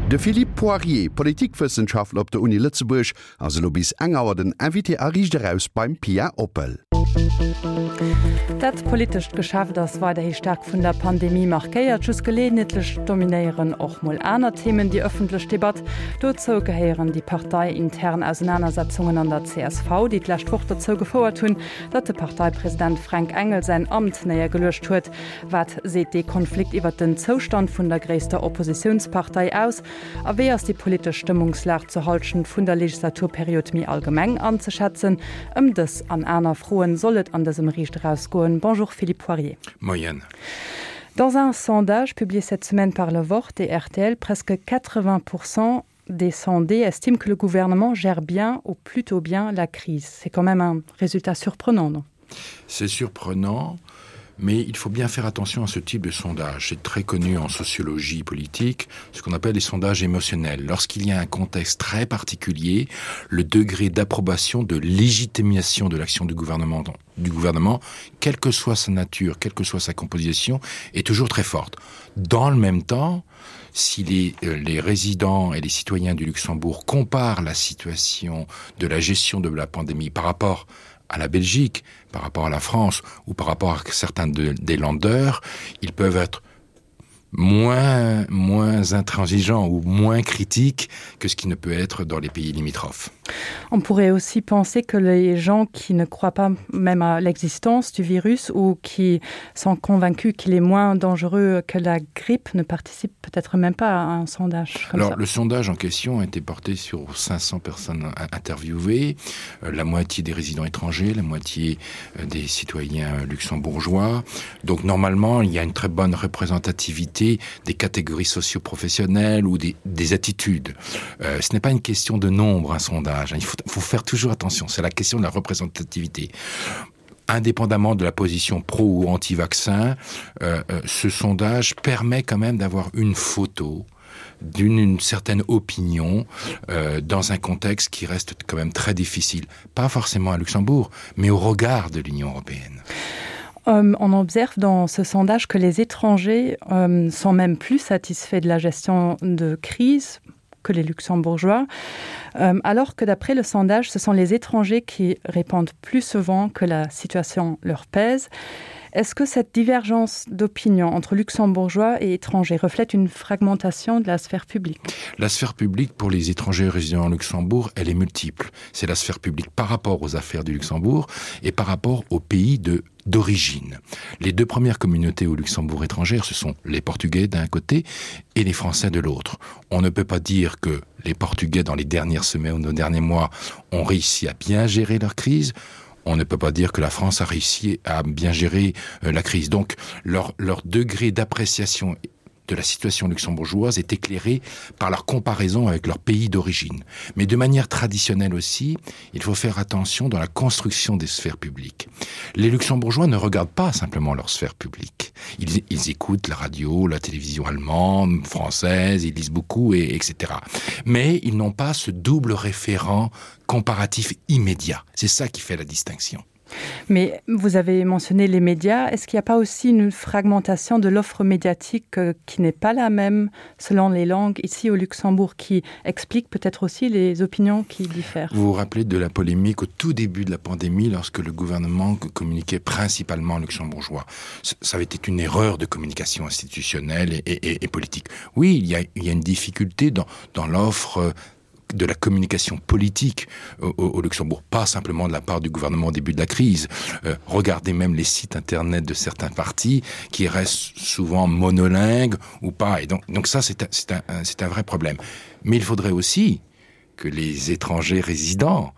De Philippe Poirier, Politikwëssenschaftler op der Uni Lëtzebuerg, ass elo bis eng Auer den Invité a Riicht Eraus beim Pia Oppel. Dat politescht Geschäft ass weiderhi staark vun der Pandemie markéiert. Just geleeënheetlech dominéieren och mol aner Themen déi ëffentlech Debatt. Dozou gehéieren déi parteiintern Ausenanersetzungen an der csv, déi d'lescht Woch dozou gefouert hunn, datt de Parteipresident Fränk Engel säin Amt néiergeluecht huet. Wat seet dee Konflikt iwwert den Zoustand vun der gréisster Oppositiounspartei aus? A wéi ass déi politesch Stëmmungslag zur Hallschent vun der Legislaturperiod méi allgemeng anzeschätzen? Ëm dës an aner Froen soll et an dësem Riicht Eraus goen. Bonjour Philippe Poirier. Moien. Dans un sondage publié cette semaine par le Wort et RTL, presque 80 Prozent des sondés estiment que le gouvernement gère bien ou plutôt bien la crise. C'est quand même un résultat surprenant, non? C'est surprenant, mais il faut bien faire attention à ce type de sondage. C'est très connu en sociologie politique, ce qu'on appelle les sondages émotionnels. Lorsqu'il y a un contexte très particulier, le degré d'approbation de légitimation de l'action du gouvernement du gouvernement, quelle que soit sa nature, quelle que soit sa composition, est toujours très forte. Dans le même temps, si les, euh, les résidents et les citoyens du Luxembourg comparent la situation de la gestion de la pandémie par rapport à la Belgique, par rapport à la France ou par rapport à certains de, des landeurs, ils peuvent être moins moins intransigeants ou moins critiques que ce qui ne peut être dans les pays limitrophes. On pourrait aussi penser que les gens qui ne croient pas même à l'existence du virus ou qui sont convaincus qu'il est moins dangereux que la grippe ne participent peut-être même pas à un sondage. Alors ça. le sondage en question a été porté sur 500 personnes interviewées, euh, la moitié des résidents étrangers, la moitié euh, des citoyens luxembourgeois. Donc normalement, il y a une très bonne représentativité des catégories socioprofessionnelles ou des, des attitudes. Euh, ce n'est pas une question de nombre un sondage, il faut, faut faire toujours attention, c'est la question de la représentativité. Indépendamment de la position pro ou anti-vaccin, euh, euh, ce sondage permet quand même d'avoir une photo d'une certaine opinion euh, dans un contexte qui reste quand même très difficile, pas forcément à Luxembourg, mais au regard de l'Union européenne. Euh, on observe dans ce sondage que les étrangers euh, sont même plus satisfaits de la gestion de crise que les luxembourgeois, euh, alors que d'après le sondage, ce sont les étrangers qui répondent plus souvent que la situation leur pèse. Est-ce que cette divergence d'opinion entre luxembourgeois et étrangers reflète une fragmentation de la sphère publique? La sphère publique pour les étrangers résidant en Luxembourg, elle est multiple. C'est la sphère publique par rapport aux affaires du Luxembourg et par rapport au pays de d'origine. Les deux premières communautés au Luxembourg étrangère, ce sont les Portugais d'un côté et les Français de l'autre. On ne peut pas dire que les Portugais dans les dernières semaines ou nos derniers mois ont réussi à bien gérer leur crise. On ne peut pas dire que la France a réussi à bien gérer euh, la crise. Donc leur, leur degré d'appréciation de la situation luxembourgeoise est éclairée par leur comparaison avec leur pays d'origine. Mais de manière traditionnelle aussi, il faut faire attention dans la construction des sphères publiques. Les luxembourgeois ne regardent pas simplement leur sphère publique. Ils, ils écoutent la radio, la télévision allemande, française, ils lisent beaucoup, et, etc. Mais ils n'ont pas ce double référent comparatif immédiat. C'est ça qui fait la distinction. Mais vous avez mentionné les médias. Est-ce qu'il n'y a pas aussi une fragmentation de l'offre médiatique euh, qui n'est pas la même selon les langues ici au Luxembourg qui explique peut-être aussi les opinions qui diffèrent Vous vous rappelez de la polémique au tout début de la pandémie lorsque le gouvernement communiquait principalement luxembourgeois. Ça avait été une erreur de communication institutionnelle et, et, et politique. Oui, il y a, il y a une difficulté dans, dans l'offre euh, de la communication politique au, au, au Luxembourg, pas simplement de la part du gouvernement au début de la crise. Euh, regardez même les sites internet de certains partis qui restent souvent monolingues ou pas. Et donc, donc ça, c'est un, un, un vrai problème. Mais il faudrait aussi que les étrangers résidents,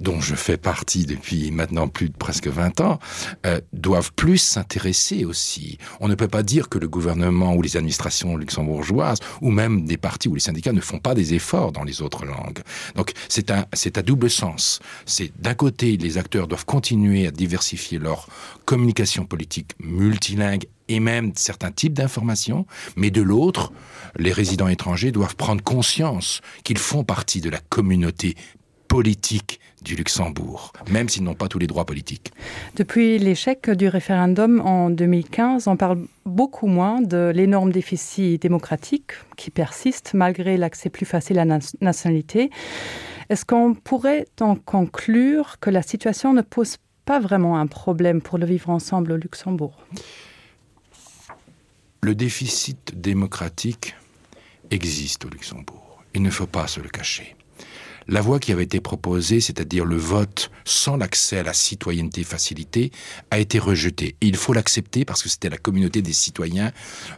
dont je fais partie depuis maintenant plus de presque 20 ans, euh, doivent plus s'intéresser aussi. On ne peut pas dire que le gouvernement ou les administrations luxembourgeoises ou même des partis ou les syndicats ne font pas des efforts dans les autres langues. Donc c'est un, à double sens. C'est d'un côté, les acteurs doivent continuer à diversifier leur communication politique multilingue et même certains types d'informations, mais de l'autre, les résidents étrangers doivent prendre conscience qu'ils font partie de la communauté politique. politique du Luxembourg, même s'ils n'ont pas tous les droits politiques. Depuis l'échec du référendum en 2015, on parle beaucoup moins de l'énorme déficit démocratique qui persiste malgré l'accès plus facile à la nationalité. Est-ce qu'on pourrait en conclure que la situation ne pose pas vraiment un problème pour le vivre ensemble au Luxembourg? Le déficit démocratique existe au Luxembourg. Il ne faut pas se le cacher. La voie qui avait été proposée, c'est-à-dire le vote sans l'accès à la citoyenneté facilitée, a été rejetée. Et il faut l'accepter parce que c'était la communauté des citoyens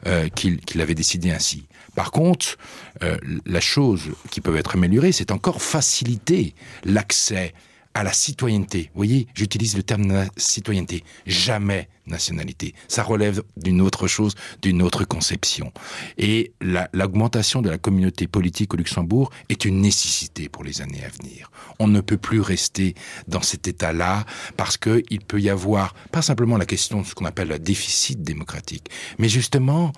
euh, qui, qui l'avait décidé ainsi. Par contre, euh, la chose qui peut être améliorée, c'est encore faciliter l'accès à la citoyenneté. Vous voyez, j'utilise le terme citoyenneté, jamais nationalité. Ça relève d'une autre chose, d'une autre conception. Et l'augmentation la, de la communauté politique au Luxembourg est une nécessité pour les années à venir. On ne peut plus rester dans cet état-là parce qu'il peut y avoir pas simplement la question de ce qu'on appelle le déficit démocratique, mais justement,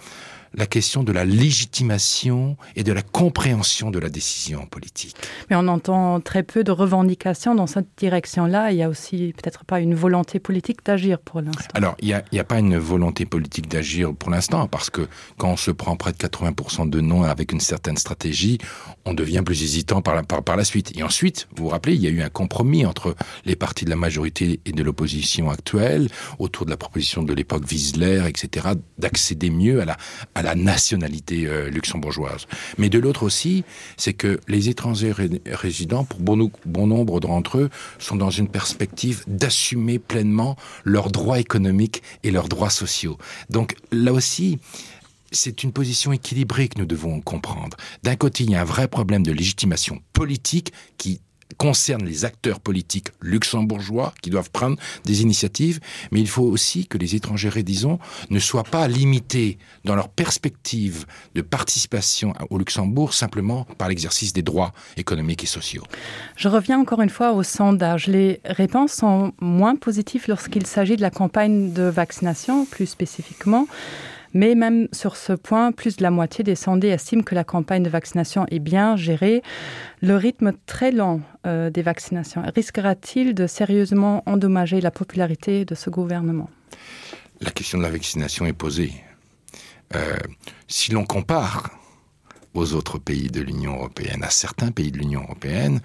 la question de la légitimation et de la compréhension de la décision politique. Mais on entend très peu de revendications dans cette direction-là. Il y a aussi peut-être pas une volonté politique d'agir pour l'instant. Alors il n'y a, a pas une volonté politique d'agir pour l'instant parce que quand on se prend près de 80% de non avec une certaine stratégie, on devient plus hésitant par la, par, par la suite. Et ensuite, vous vous rappelez, il y a eu un compromis entre les partis de la majorité et de l'opposition actuelle autour de la proposition de l'époque Wiesler, etc., d'accéder mieux à la, à la nationalité euh, luxembourgeoise. Mais de l'autre aussi, c'est que les étrangers ré résidents, pour bon, bon nombre d'entre eux, sont dans une perspective d'assumer pleinement leurs droits économiques et leurs droits sociaux. Donc là aussi, c'est une position équilibrée que nous devons comprendre. D'un côté, il y a un vrai problème de légitimation politique qui concerne les acteurs politiques luxembourgeois qui doivent prendre des initiatives, mais il faut aussi que les étrangers disons ne soient pas limités dans leur perspective de participation au Luxembourg simplement par l'exercice des droits économiques et sociaux. Je reviens encore une fois au sondage. Les réponses sont moins positives lorsqu'il s'agit de la campagne de vaccination plus spécifiquement. Mais même sur ce point, plus de la moitié des sondés estiment que la campagne de vaccination est bien gérée. Le rythme très lent euh, des vaccinations risquera-t-il de sérieusement endommager la popularité de ce gouvernement La question de la vaccination est posée. Euh, si l'on compare aux autres pays de l'Union européenne, à certains pays de l'Union européenne,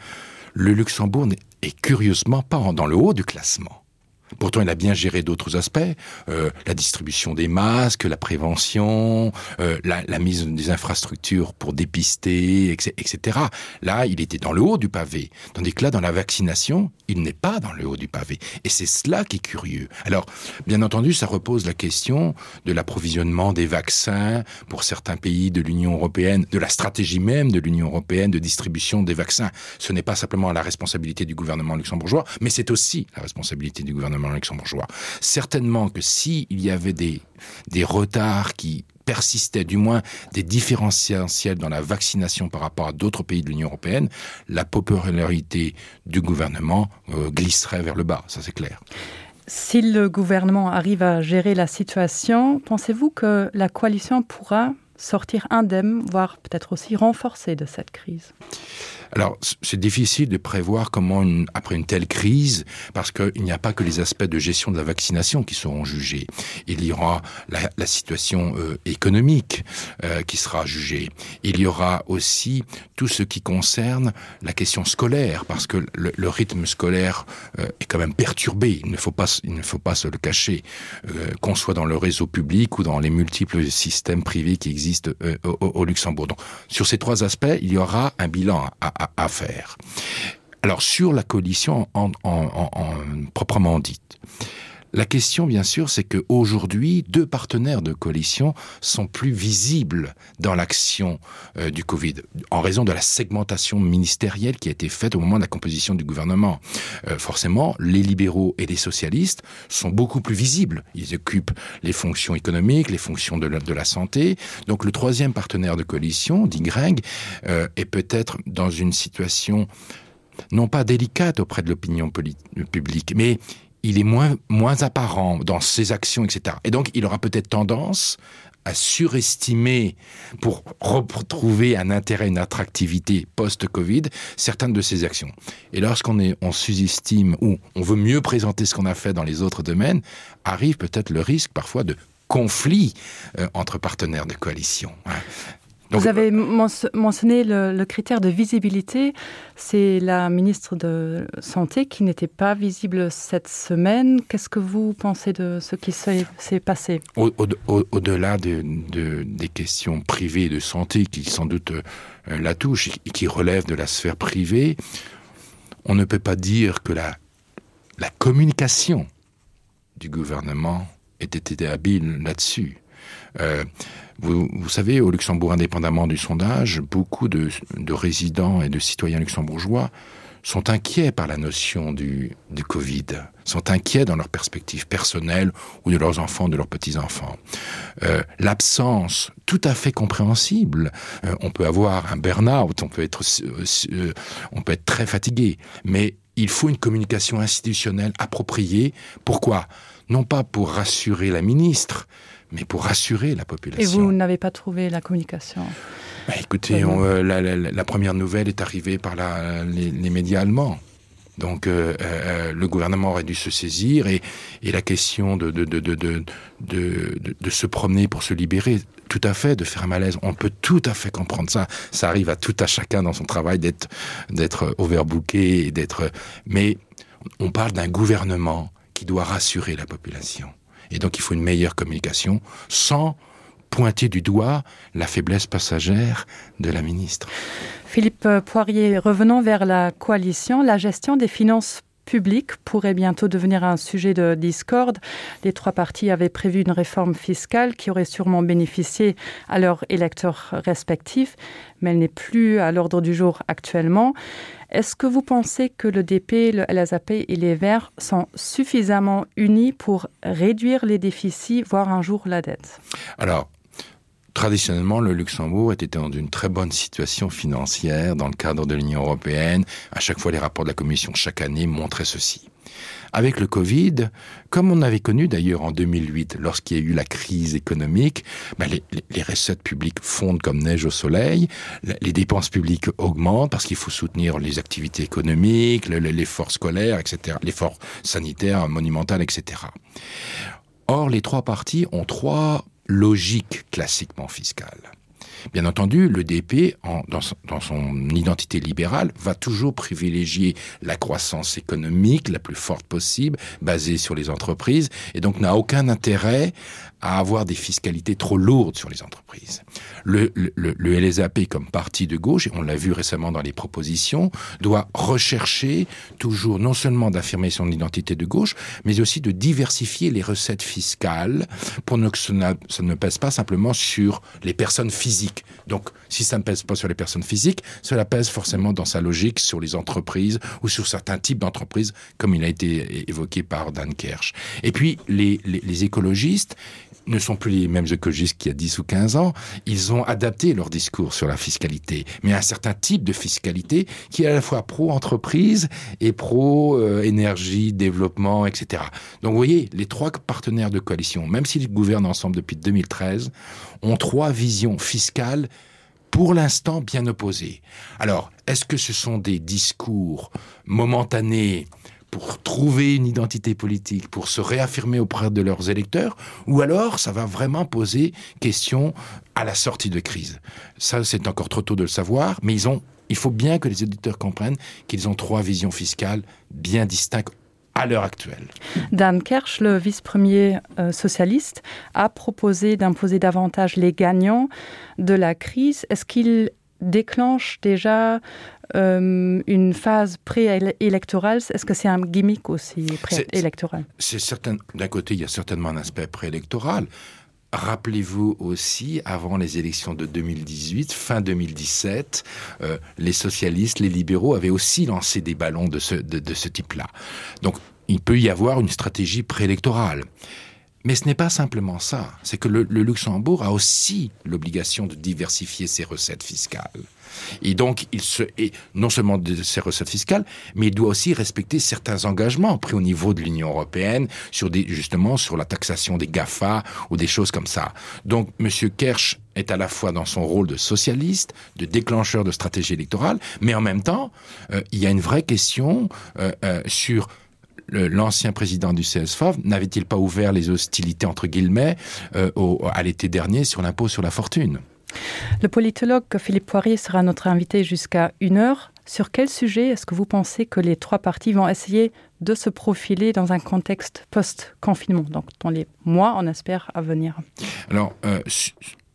le Luxembourg n'est curieusement pas dans le haut du classement. Pourtant, il a bien géré d'autres aspects, euh, la distribution des masques, la prévention, euh, la, la mise des infrastructures pour dépister, etc. Là, il était dans le haut du pavé, tandis que là, dans la vaccination, il n'est pas dans le haut du pavé. Et c'est cela qui est curieux. Alors, bien entendu, ça repose la question de l'approvisionnement des vaccins pour certains pays de l'Union européenne, de la stratégie même de l'Union européenne de distribution des vaccins. Ce n'est pas simplement la responsabilité du gouvernement luxembourgeois, mais c'est aussi la responsabilité du gouvernement luxembourgeois. Certainement que s'il si y avait des, des retards qui persistaient, du moins des différentiels dans la vaccination par rapport à d'autres pays de l'Union européenne, la popularité du gouvernement euh, glisserait vers le bas, ça c'est clair. Si le gouvernement arrive à gérer la situation, pensez-vous que la coalition pourra sortir indemne, voire peut-être aussi renforcée de cette crise? Alors c'est difficile de prévoir comment une, après une telle crise parce qu'il n'y a pas que les aspects de gestion de la vaccination qui seront jugés. Il y aura la, la situation euh, économique euh, qui sera jugée. Il y aura aussi tout ce qui concerne la question scolaire parce que le, le rythme scolaire euh, est quand même perturbé. Il ne faut pas, il ne faut pas se le cacher euh, qu'on soit dans le réseau public ou dans les multiples systèmes privés qui existent euh, au, au Luxembourg. Donc sur ces trois aspects, il y aura un bilan à, à, à faire. Alors sur la coalition en, en, en, en proprement dite. La question, bien sûr, c'est que aujourd'hui, deux partenaires de coalition sont plus visibles dans l'action euh, du Covid, en raison de la segmentation ministérielle qui a été faite au moment de la composition du gouvernement. Euh, forcément, les libéraux et les socialistes sont beaucoup plus visibles. Ils occupent les fonctions économiques, les fonctions de la, de la santé. Donc le troisième partenaire de coalition, dit Greng, euh, est peut-être dans une situation non pas délicate auprès de l'opinion publique, mais il est moins, moins apparent dans ses actions, etc. Et donc il aura peut-être tendance à surestimer pour retrouver un intérêt, une attractivité post-Covid, certaines de ces actions. Et lorsqu'on est on sous-estime ou on veut mieux présenter ce qu'on a fait dans les autres domaines, arrive peut-être le risque parfois de conflit euh, entre partenaires de coalition. Hein. Donc, Vous avez mentionné le, le critère de visibilité. C'est la ministre de Santé qui n'était pas visible cette semaine. Qu'est-ce que vous pensez de ce qui s'est passé Au-delà au, au, de, de, des questions privées de santé qui sans doute euh, la touchent et qui relèvent de la sphère privée, on ne peut pas dire que la, la communication du gouvernement ait été habile là-dessus. Euh, vous, vous savez, au Luxembourg, indépendamment du sondage, beaucoup de, de résidents et de citoyens luxembourgeois sont inquiets par la notion du, du Covid, sont inquiets dans leur perspective personnelle ou de leurs enfants, de leurs petits-enfants. Euh, L'absence tout à fait compréhensible, euh, on peut avoir un burn-out, on peut être, euh, euh, on peut être très fatigué, mais il faut une communication institutionnelle appropriée. Pourquoi Non pas pour rassurer la ministre, mais pour rassurer la population. Et vous n'avez pas trouvé la communication bah, écoutez, on, euh, la, la, la première nouvelle est arrivée par la, les, les médias allemands. Donc euh, euh, le gouvernement aurait dû se saisir et, et la question de, de, de, de, de, de, de, de se promener pour se libérer, tout à fait, de faire un malaise, on peut tout à fait comprendre ça. Ça arrive à tout à chacun dans son travail d'être overbooké et d'être. Mais on parle d'un gouvernement qui doit rassurer la population. Et donc il faut une meilleure communication sans pointer du doigt la faiblesse passagère de la ministre. Philippe Poirier, revenons vers la coalition, la gestion des finances publiques pourrait bientôt devenir un sujet de discorde. Les trois partis avaient prévu une réforme fiscale qui aurait sûrement bénéficié à leurs électeurs respectifs, mais elle n'est plus à l'ordre du jour actuellement. Est-ce que vous pensez que le DP, le LSAP et les Verts sont suffisamment unis pour réduire les déficits, voire un jour la dette Alors, Traditionnellement, le Luxembourg était dans une très bonne situation financière dans le cadre de l'Union européenne. À chaque fois, les rapports de la Commission chaque année montraient ceci. Avec le Covid, comme on avait connu d'ailleurs en 2008 lorsqu'il y a eu la crise économique, ben les, les, les recettes publiques fondent comme neige au soleil, les dépenses publiques augmentent parce qu'il faut soutenir les activités économiques, l'effort scolaire, etc., l'effort sanitaire monumental, etc. Or, les trois partis ont trois logiques classiquement fiscales. Bien entendu, le DP, en, dans, son, dans son identité libérale, va toujours privilégier la croissance économique la plus forte possible, basée sur les entreprises, et donc n'a aucun intérêt à avoir des fiscalités trop lourdes sur les entreprises. Le, le, le LSAP comme parti de gauche, et on l'a vu récemment dans les propositions, doit rechercher toujours non seulement d'affirmer son identité de gauche, mais aussi de diversifier les recettes fiscales pour ne, que ça ne pèse pas simplement sur les personnes physiques. Donc si ça ne pèse pas sur les personnes physiques, cela pèse forcément dans sa logique sur les entreprises ou sur certains types d'entreprises, comme il a été évoqué par Dan Kersch. Et puis les, les, les écologistes ne sont plus les mêmes écologistes qu'il y a 10 ou 15 ans, ils ont adapté leur discours sur la fiscalité, mais un certain type de fiscalité qui est à la fois pro-entreprise et pro-énergie, euh, développement, etc. Donc vous voyez, les trois partenaires de coalition, même s'ils gouvernent ensemble depuis 2013, ont trois visions fiscales pour l'instant bien opposées. Alors, est-ce que ce sont des discours momentanés pour trouver une identité politique, pour se réaffirmer auprès de leurs électeurs, ou alors ça va vraiment poser question à la sortie de crise. Ça, c'est encore trop tôt de le savoir, mais ils ont, il faut bien que les éditeurs comprennent qu'ils ont trois visions fiscales bien distinctes à l'heure actuelle. Dan Kersch, le vice-premier euh, socialiste, a proposé d'imposer davantage les gagnants de la crise. Est-ce qu'il déclenche déjà euh, une phase préélectorale Est-ce que c'est un gimmick aussi préélectoral C'est certain d'un côté, il y a certainement un aspect préélectoral. Rappelez-vous aussi, avant les élections de 2018, fin 2017, euh, les socialistes, les libéraux avaient aussi lancé des ballons de ce, de, de ce type-là. Donc il peut y avoir une stratégie préélectorale. Mais ce n'est pas simplement ça, c'est que le, le Luxembourg a aussi l'obligation de diversifier ses recettes fiscales. Et donc il se est non seulement de ses recettes fiscales, mais il doit aussi respecter certains engagements pris au niveau de l'Union européenne sur des, justement sur la taxation des GAFA ou des choses comme ça. Donc monsieur Kersch est à la fois dans son rôle de socialiste, de déclencheur de stratégie électorale, mais en même temps, euh, il y a une vraie question euh, euh, sur l'ancien président du CSFAV n'avait-il pas ouvert les hostilités entre guillemets euh, au, à l'été dernier sur l'impôt sur la fortune? Le politologue Philippe Poirier sera notre invité jusqu'à une heure. Sur quel sujet est-ce que vous pensez que les trois partis vont essayer de se profiler dans un contexte post-confinement, donc dans les mois on espère à venir Alors euh,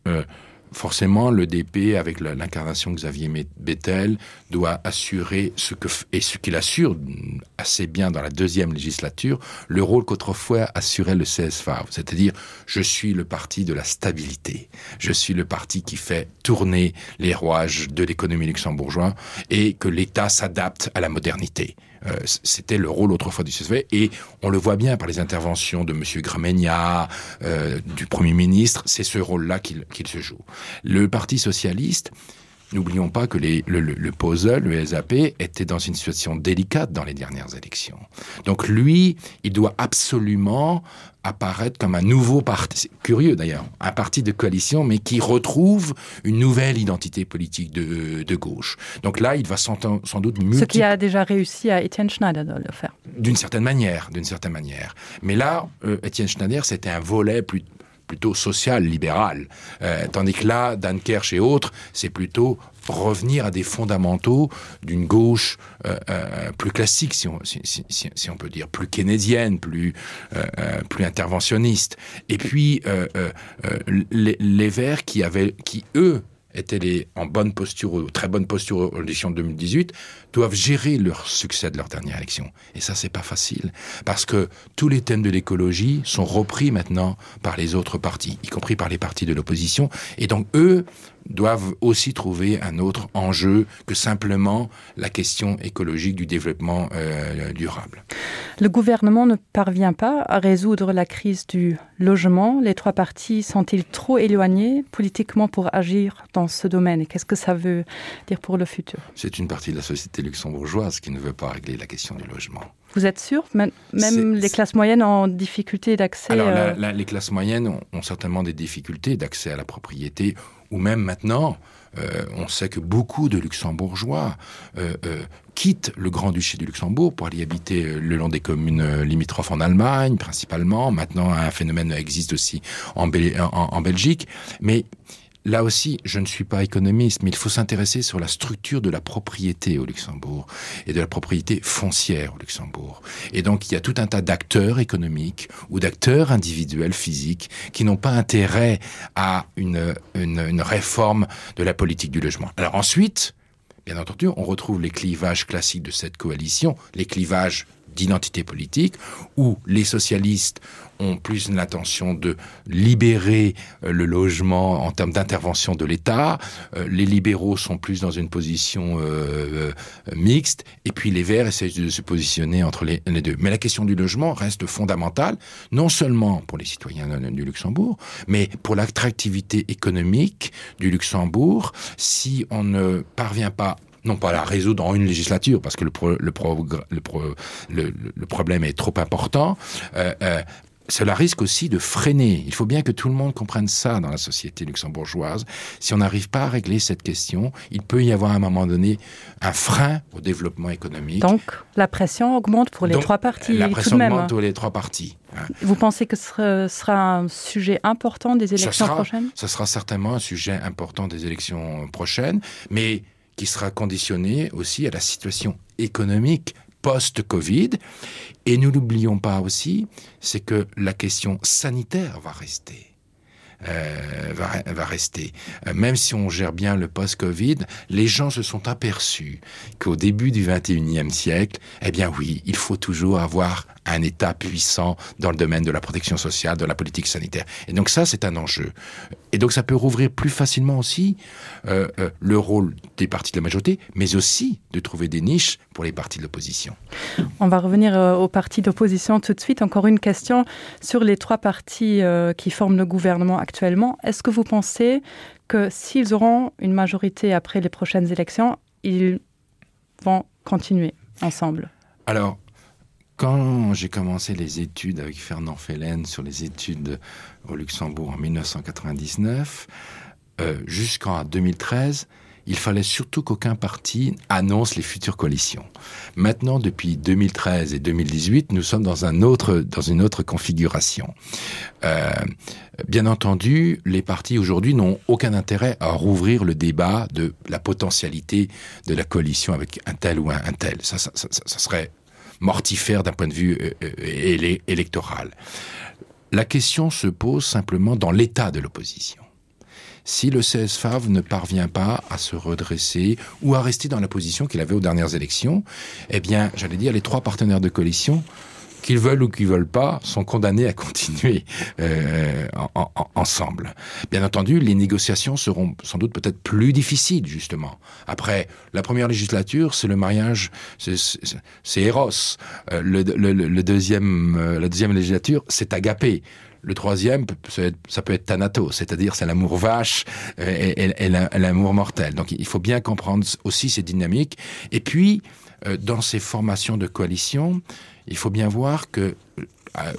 euh, forcément le DP avec l'incarnation Xavier Bettel doit assurer ce que et ce qu'il assure assez bien dans la deuxième législature le rôle qu'autrefois assurait le CSFA c'est-à-dire je suis le parti de la stabilité je suis le parti qui fait tourner les rouages de l'économie luxembourgeois et que l'état s'adapte à la modernité euh, c'était le rôle autrefois du CSV et on le voit bien par les interventions de monsieur Gramegna euh, du premier ministre c'est ce rôle là qu'il qu se joue le parti socialiste n'oublions pas que les, le, le, le puzzle le SAP était dans une situation délicate dans les dernières élections donc lui il doit absolument apparaître comme un nouveau parti curieux d'ailleurs un parti de coalition mais qui retrouve une nouvelle identité politique de, de gauche donc là il va sans, sans doute multi... ce qui a déjà réussi à Etienne Schneider de le faire d'une certaine manière d'une certaine manière mais là euh, Etienne Schneider c'était un volet plus plutôt social libéral euh, tandis que là Dan Kersch et autres c'est plutôt revenir à des fondamentaux d'une gauche euh, euh, plus classique si on, si, si, si, si on peut dire plus keynésienne plus euh, euh, plus interventionniste et puis euh, euh, euh les, les verts qui avaient qui eux étaient les en bonne posture ou très bonne posture aux élections 2018 doivent gérer leur succès de leur dernière élection et ça c'est pas facile parce que tous les thèmes de l'écologie sont repris maintenant par les autres partis y compris par les partis de l'opposition et donc eux doivent aussi trouver un autre enjeu que simplement la question écologique du développement euh, durable. Le gouvernement ne parvient pas à résoudre la crise du logement. Les trois partis sont-ils trop éloignés politiquement pour agir dans ce domaine Qu'est-ce que ça veut dire pour le futur C'est une partie de la société luxembourgeoise qui ne veut pas régler la question du logement. Vous êtes sûr même les classes moyennes en difficulté d'accès Alors euh... la, la, les classes moyennes ont, ont certainement des difficultés d'accès à la propriété ou même maintenant euh, on sait que beaucoup de luxembourgeois euh, euh, quittent le grand-duché du Luxembourg pour aller habiter euh, le long des communes euh, limitrophes en Allemagne principalement maintenant un phénomène existe aussi en, Bel en, en Belgique mais là aussi je ne suis pas économiste mais il faut s'intéresser sur la structure de la propriété au Luxembourg et de la propriété foncière au Luxembourg et donc il y a tout un tas d'acteurs économiques ou d'acteurs individuels physiques qui n'ont pas intérêt à une, une, une réforme de la politique du logement alors ensuite bien entendu on retrouve les clivages classiques de cette coalition les clivages d'identité politique où les socialistes ont plus l'intention de libérer euh, le logement en termes d'intervention de l'État, euh, les libéraux sont plus dans une position euh, euh, mixte et puis les verts essayent de se positionner entre les, les deux. Mais la question du logement reste fondamentale, non seulement pour les citoyens du Luxembourg, mais pour l'attractivité économique du Luxembourg si on ne parvient pas non pas la résoudre en une législature parce que le, pro, le, pro, le, pro, le, le problème est trop important euh, euh, cela risque aussi de freiner. Il faut bien que tout le monde comprenne ça dans la société luxembourgeoise. Si on n'arrive pas à régler cette question, il peut y avoir à un moment donné un frein au développement économique. Donc la pression augmente pour les Donc, trois partis la pression tout de même. augmente pour les trois partis. Vous pensez que ce sera un sujet important des élections ça sera, prochaines Ce sera certainement un sujet important des élections prochaines, mais qui sera conditionné aussi à la situation économique post-Covid. Et nous l'oublions pas aussi, c'est que la question sanitaire va rester. Euh, va, va rester. Euh, même si on gère bien le post-Covid, les gens se sont aperçus qu'au début du 21e siècle, eh bien oui, il faut toujours avoir un un État puissant dans le domaine de la protection sociale, de la politique sanitaire. Et donc ça, c'est un enjeu. Et donc ça peut rouvrir plus facilement aussi euh, euh, le rôle des partis de la majorité, mais aussi de trouver des niches pour les partis de l'opposition. On va revenir euh, aux partis d'opposition tout de suite. Encore une question sur les trois partis euh, qui forment le gouvernement actuellement. Est-ce que vous pensez que s'ils auront une majorité après les prochaines élections, ils vont continuer ensemble Alors, quand j'ai commencé les études avec Fernand Fellen sur les études au Luxembourg en 1999, euh, jusqu'en 2013, il fallait surtout qu'aucun parti annonce les futures coalitions. Maintenant, depuis 2013 et 2018, nous sommes dans, un autre, dans une autre configuration. Euh, bien entendu, les partis aujourd'hui n'ont aucun intérêt à rouvrir le débat de la potentialité de la coalition avec un tel ou un, un tel. Ça, ça, ça, ça serait mortifère d'un point de vue euh, euh, électoral. La question se pose simplement dans l'état de l'opposition si le CSFAV ne parvient pas à se redresser ou à rester dans la position qu'il avait aux dernières élections, eh bien, j'allais dire, les trois partenaires de coalition, qu'ils veulent ou qu'ils veulent pas, sont condamnés à continuer euh, en, en, ensemble. Bien entendu, les négociations seront sans doute peut-être plus difficiles, justement. Après, la première législature, c'est le mariage, c'est Eros. Euh, le, le, le deuxième, euh, la deuxième législature, c'est Agapé le troisième ça peut être thanatos c'est à dire c'est l'amour vache euh, et, et, et l'amour mortel donc il faut bien comprendre aussi ces dynamiques et puis euh, dans ces formations de coalition il faut bien voir que euh,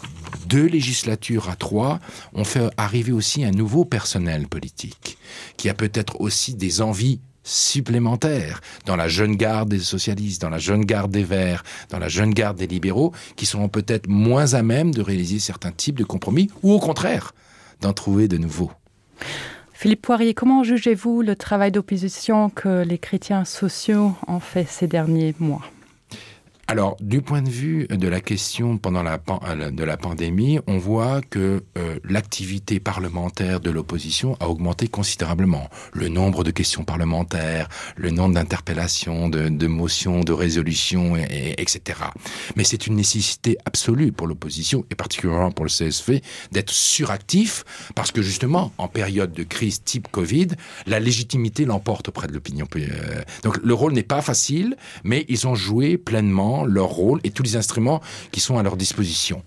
deux législatures à trois ont fait arriver aussi un nouveau personnel politique qui a peut-être aussi des envies supplémentaires dans la jeune garde des socialistes, dans la jeune garde des verts, dans la jeune garde des libéraux, qui seront peut-être moins à même de réaliser certains types de compromis ou au contraire d'en trouver de nouveaux. Philippe Poirier, comment jugez-vous le travail d'opposition que les chrétiens sociaux ont fait ces derniers mois? Alors, du point de vue de la question pendant la, pan euh, de la pandémie, on voit que euh, l'activité parlementaire de l'opposition a augmenté considérablement. Le nombre de questions parlementaires, le nombre d'interpellations, de, de motions, de résolutions, et, et, etc. Mais c'est une nécessité absolue pour l'opposition, et particulièrement pour le CSV, d'être suractif, parce que justement, en période de crise type Covid, la légitimité l'emporte auprès de l'opinion. Euh, donc le rôle n'est pas facile, mais ils ont joué pleinement leur rôle et tous les instruments qui sont à leur disposition.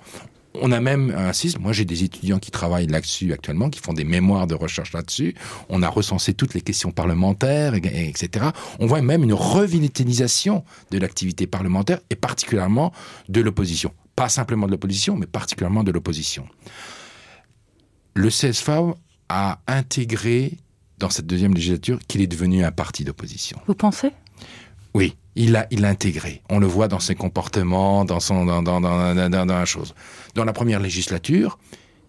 On a même un système, moi j'ai des étudiants qui travaillent là-dessus actuellement, qui font des mémoires de recherche là-dessus. On a recensé toutes les questions parlementaires, et, et, etc. On voit même une revitalisation de l'activité parlementaire et particulièrement de l'opposition. Pas simplement de l'opposition, mais particulièrement de l'opposition. Le CSV a intégré dans cette deuxième législature qu'il est devenu un parti d'opposition. Vous pensez Oui il a il intégré on le voit dans ses comportements dans son dans, dans, dans, dans, dans, dans la chose dans la première législature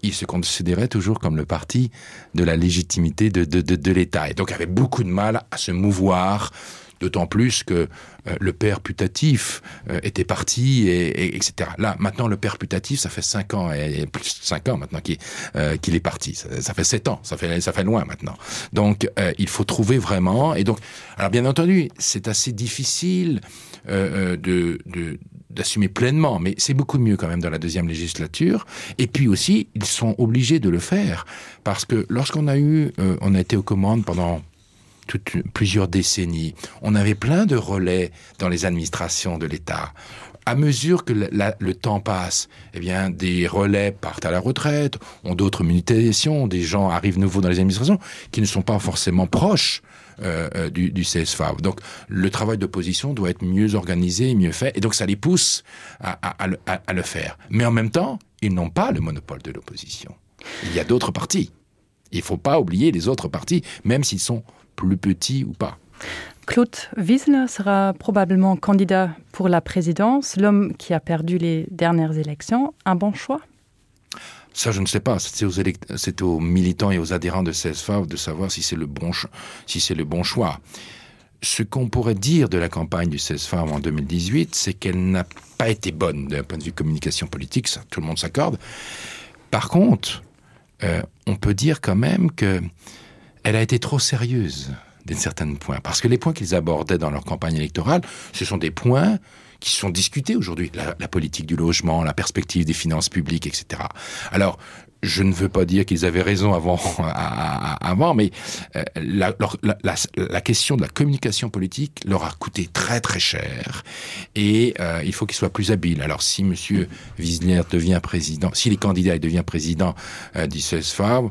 il se considérait toujours comme le parti de la légitimité de de, de, de l'état et donc avait beaucoup de mal à se mouvoir d'autant plus que euh, le père putatif euh, était parti et, et etc là maintenant le père putatif ça fait cinq ans et, et plus cinq ans maintenant qu'il euh, qu'il est parti ça, ça fait sept ans ça fait ça fait loin maintenant donc euh, il faut trouver vraiment et donc alors bien entendu c'est assez difficile euh, euh de, de d'assumer pleinement mais c'est beaucoup mieux quand même dans la deuxième législature et puis aussi ils sont obligés de le faire parce que lorsqu'on a eu euh, on a été aux commandes pendant toute, plusieurs décennies. On avait plein de relais dans les administrations de l'État. À mesure que la, la, le temps passe, eh bien, des relais partent à la retraite, ont d'autres mutations, des gens arrivent nouveaux dans les administrations qui ne sont pas forcément proches euh, euh du, du CSFAV. Donc le travail d'opposition doit être mieux organisé et mieux fait, et donc ça les pousse à, à, à, à, à le faire. Mais en même temps, ils n'ont pas le monopole de l'opposition. Il y a d'autres partis. Il ne faut pas oublier les autres partis, même s'ils sont plus petit ou pas. Claude Wiesner sera probablement candidat pour la présidence, l'homme qui a perdu les dernières élections, un bon choix Ça je ne sais pas, c'est aux, élect... aux militants et aux adhérents de CSFAV de savoir si c'est le, bon si le bon choix. Ce qu'on pourrait dire de la campagne du CSFAV en 2018, c'est qu'elle n'a pas été bonne d'un point de vue communication politique, ça, tout le monde s'accorde. Par contre, euh, on peut dire quand même que elle a été trop sérieuse. d'un certain point parce que les points qu'ils abordaient dans leur campagne électorale ce sont des points qui sont discutés aujourd'hui la, la politique du logement la perspective des finances publiques etc alors je ne veux pas dire qu'ils avaient raison avant à, à, avant mais euh, la, la, la, la question de la communication politique leur a coûté très très cher et euh, il faut qu'ils soient plus habiles alors si monsieur Wiesner devient président si les candidats devient président euh, du CSFA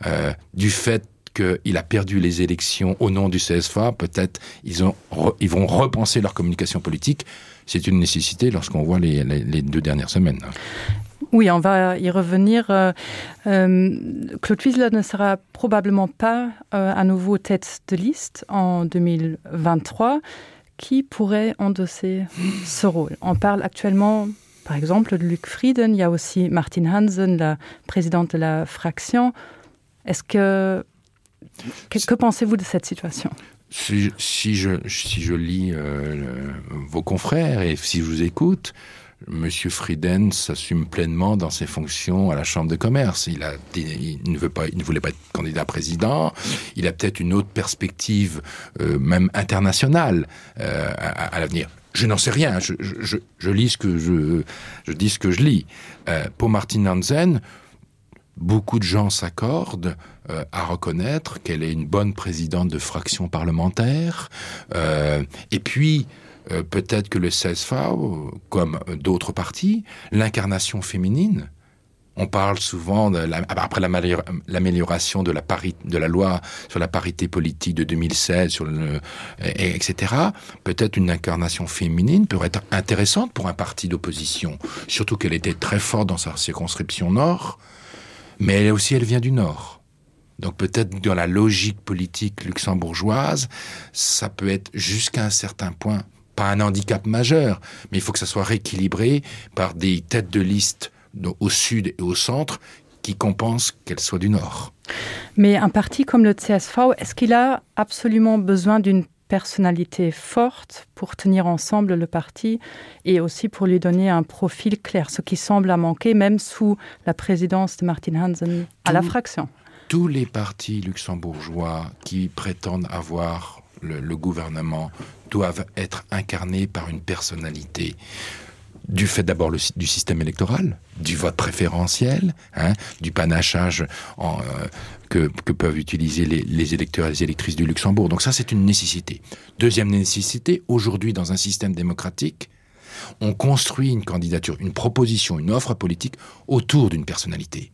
euh, du fait qu'il a perdu les élections au nom du CSFA peut-être ils ont ils vont repenser leur communication politique c'est une nécessité lorsqu'on voit les, les, les deux dernières semaines. Oui, on va y revenir. Euh, euh, Claude Wiesler ne sera probablement pas euh, à nouveau tête de liste en 2023. Qui pourrait endosser ce rôle On parle actuellement, par exemple, de Luc Frieden. Il y a aussi Martin Hansen, la présidente de la fraction. Est-ce que que, que pensez-vous de cette situation si, si, je, si je lis euh, le, vos confrères et si je vous écoute, Monsieur Frieden s'assume pleinement dans ses fonctions à la chambre de commerce. Il, a, il, ne, veut pas, il ne voulait pas être candidat président. Il a peut-être une autre perspective, euh, même internationale, euh, à, à l'avenir. Je n'en sais rien, je, je, je lis ce que je, je dis ce que je lis. Euh, pour Martin Hansen, beaucoup de gens s'accordent euh, à reconnaître qu'elle est une bonne présidente de fraction parlementaire. Euh, et puis, euh, peut-être que le CSV, comme d'autres partis, l'incarnation féminine, on parle souvent de la, après l'amélioration de la parité de la loi sur la parité politique de 2016 sur le, et, etc peut-être une incarnation féminine pourrait être intéressante pour un parti d'opposition surtout qu'elle était très forte dans sa circonscription nord mais elle aussi elle vient du nord donc peut-être dans la logique politique luxembourgeoise ça peut être jusqu'à un certain point pas un handicap majeur mais il faut que ça soit rééquilibré par des têtes de liste au sud et au centre qui compensent qu'elle soit du nord. Mais un parti comme le CSV, est-ce qu'il a absolument besoin d'une personnalité forte pour tenir ensemble le parti et aussi pour lui donner un profil clair, ce qui semble à manquer même sous la présidence de Martin Hansen à Tout, la fraction. Tous les partis luxembourgeois qui prétendent avoir le, le gouvernement doivent être incarnés par une personnalité du fait d'abord du système électoral, du vote préférentiel, hein, du panachage en, euh, que, que peuvent utiliser les, les électeurs et les électrices du Luxembourg. Donc ça c'est une nécessité. Deuxième nécessité, aujourd'hui dans un système démocratique, on construit une candidature, une proposition, une offre politique autour d'une personnalité.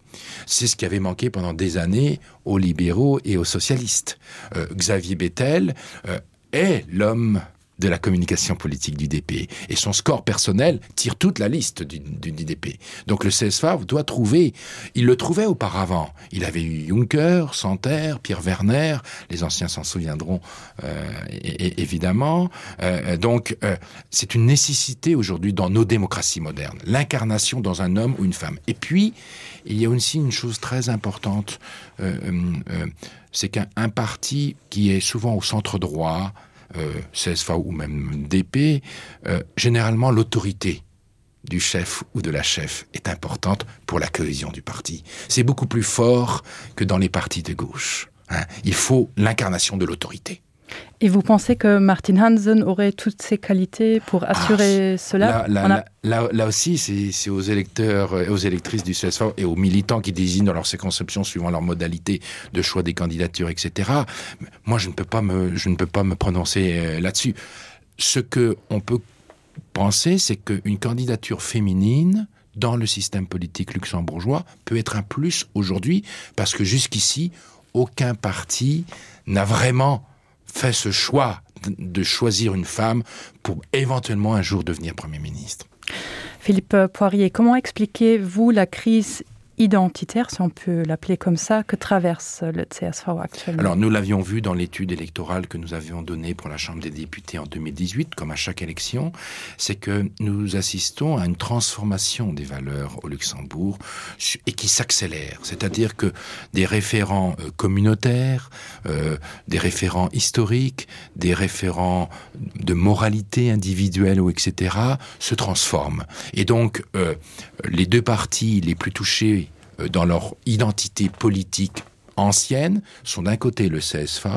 C'est ce qui avait manqué pendant des années aux libéraux et aux socialistes. Euh, Xavier Bettel euh, est l'homme de la communication politique du DP et son score personnel tire toute la liste du, du DP. Donc le CSFA doit trouver, il le trouvait auparavant. Il avait eu Juncker, Santerre, Pierre Werner, les anciens s'en souviendront euh, évidemment. Euh, donc euh, c'est une nécessité aujourd'hui dans nos démocraties modernes, l'incarnation dans un homme ou une femme. Et puis il y a aussi une chose très importante, euh, euh, euh c'est qu'un parti qui est souvent au centre droit, euh, CSV ou même DP, euh, généralement l'autorité du chef ou de la chef est importante pour la cohésion du parti. C'est beaucoup plus fort que dans les partis de gauche. Hein. Il faut l'incarnation de l'autorité. Et vous pensez que Martin Hansen aurait toutes ses qualités pour assurer ah, cela là, là, a... là, là, là aussi, c'est aux électeurs et aux électrices du CSV et aux militants qui désignent dans leur circonscription suivant leur modalité de choix des candidatures, etc. Moi, je ne peux pas me, je ne peux pas me prononcer euh, là-dessus. Ce que on peut penser, c'est qu'une candidature féminine dans le système politique luxembourgeois peut être un plus aujourd'hui parce que jusqu'ici, aucun parti n'a vraiment fait ce choix de choisir une femme pour éventuellement un jour devenir premier ministre. Philippe Poirier, comment expliquez-vous la crise identitaire, si on peut l'appeler comme ça, que traverse le CSV actuellement Alors nous l'avions vu dans l'étude électorale que nous avions donnée pour la Chambre des députés en 2018, comme à chaque élection, c'est que nous assistons à une transformation des valeurs au Luxembourg et qui s'accélère. C'est-à-dire que des référents euh, communautaires, euh, des référents historiques, des référents de moralité individuelle ou etc. se transforment. Et donc euh, les deux partis les plus touchés Euh, dans leur identité politique. anciennes sont d'un côté le CSV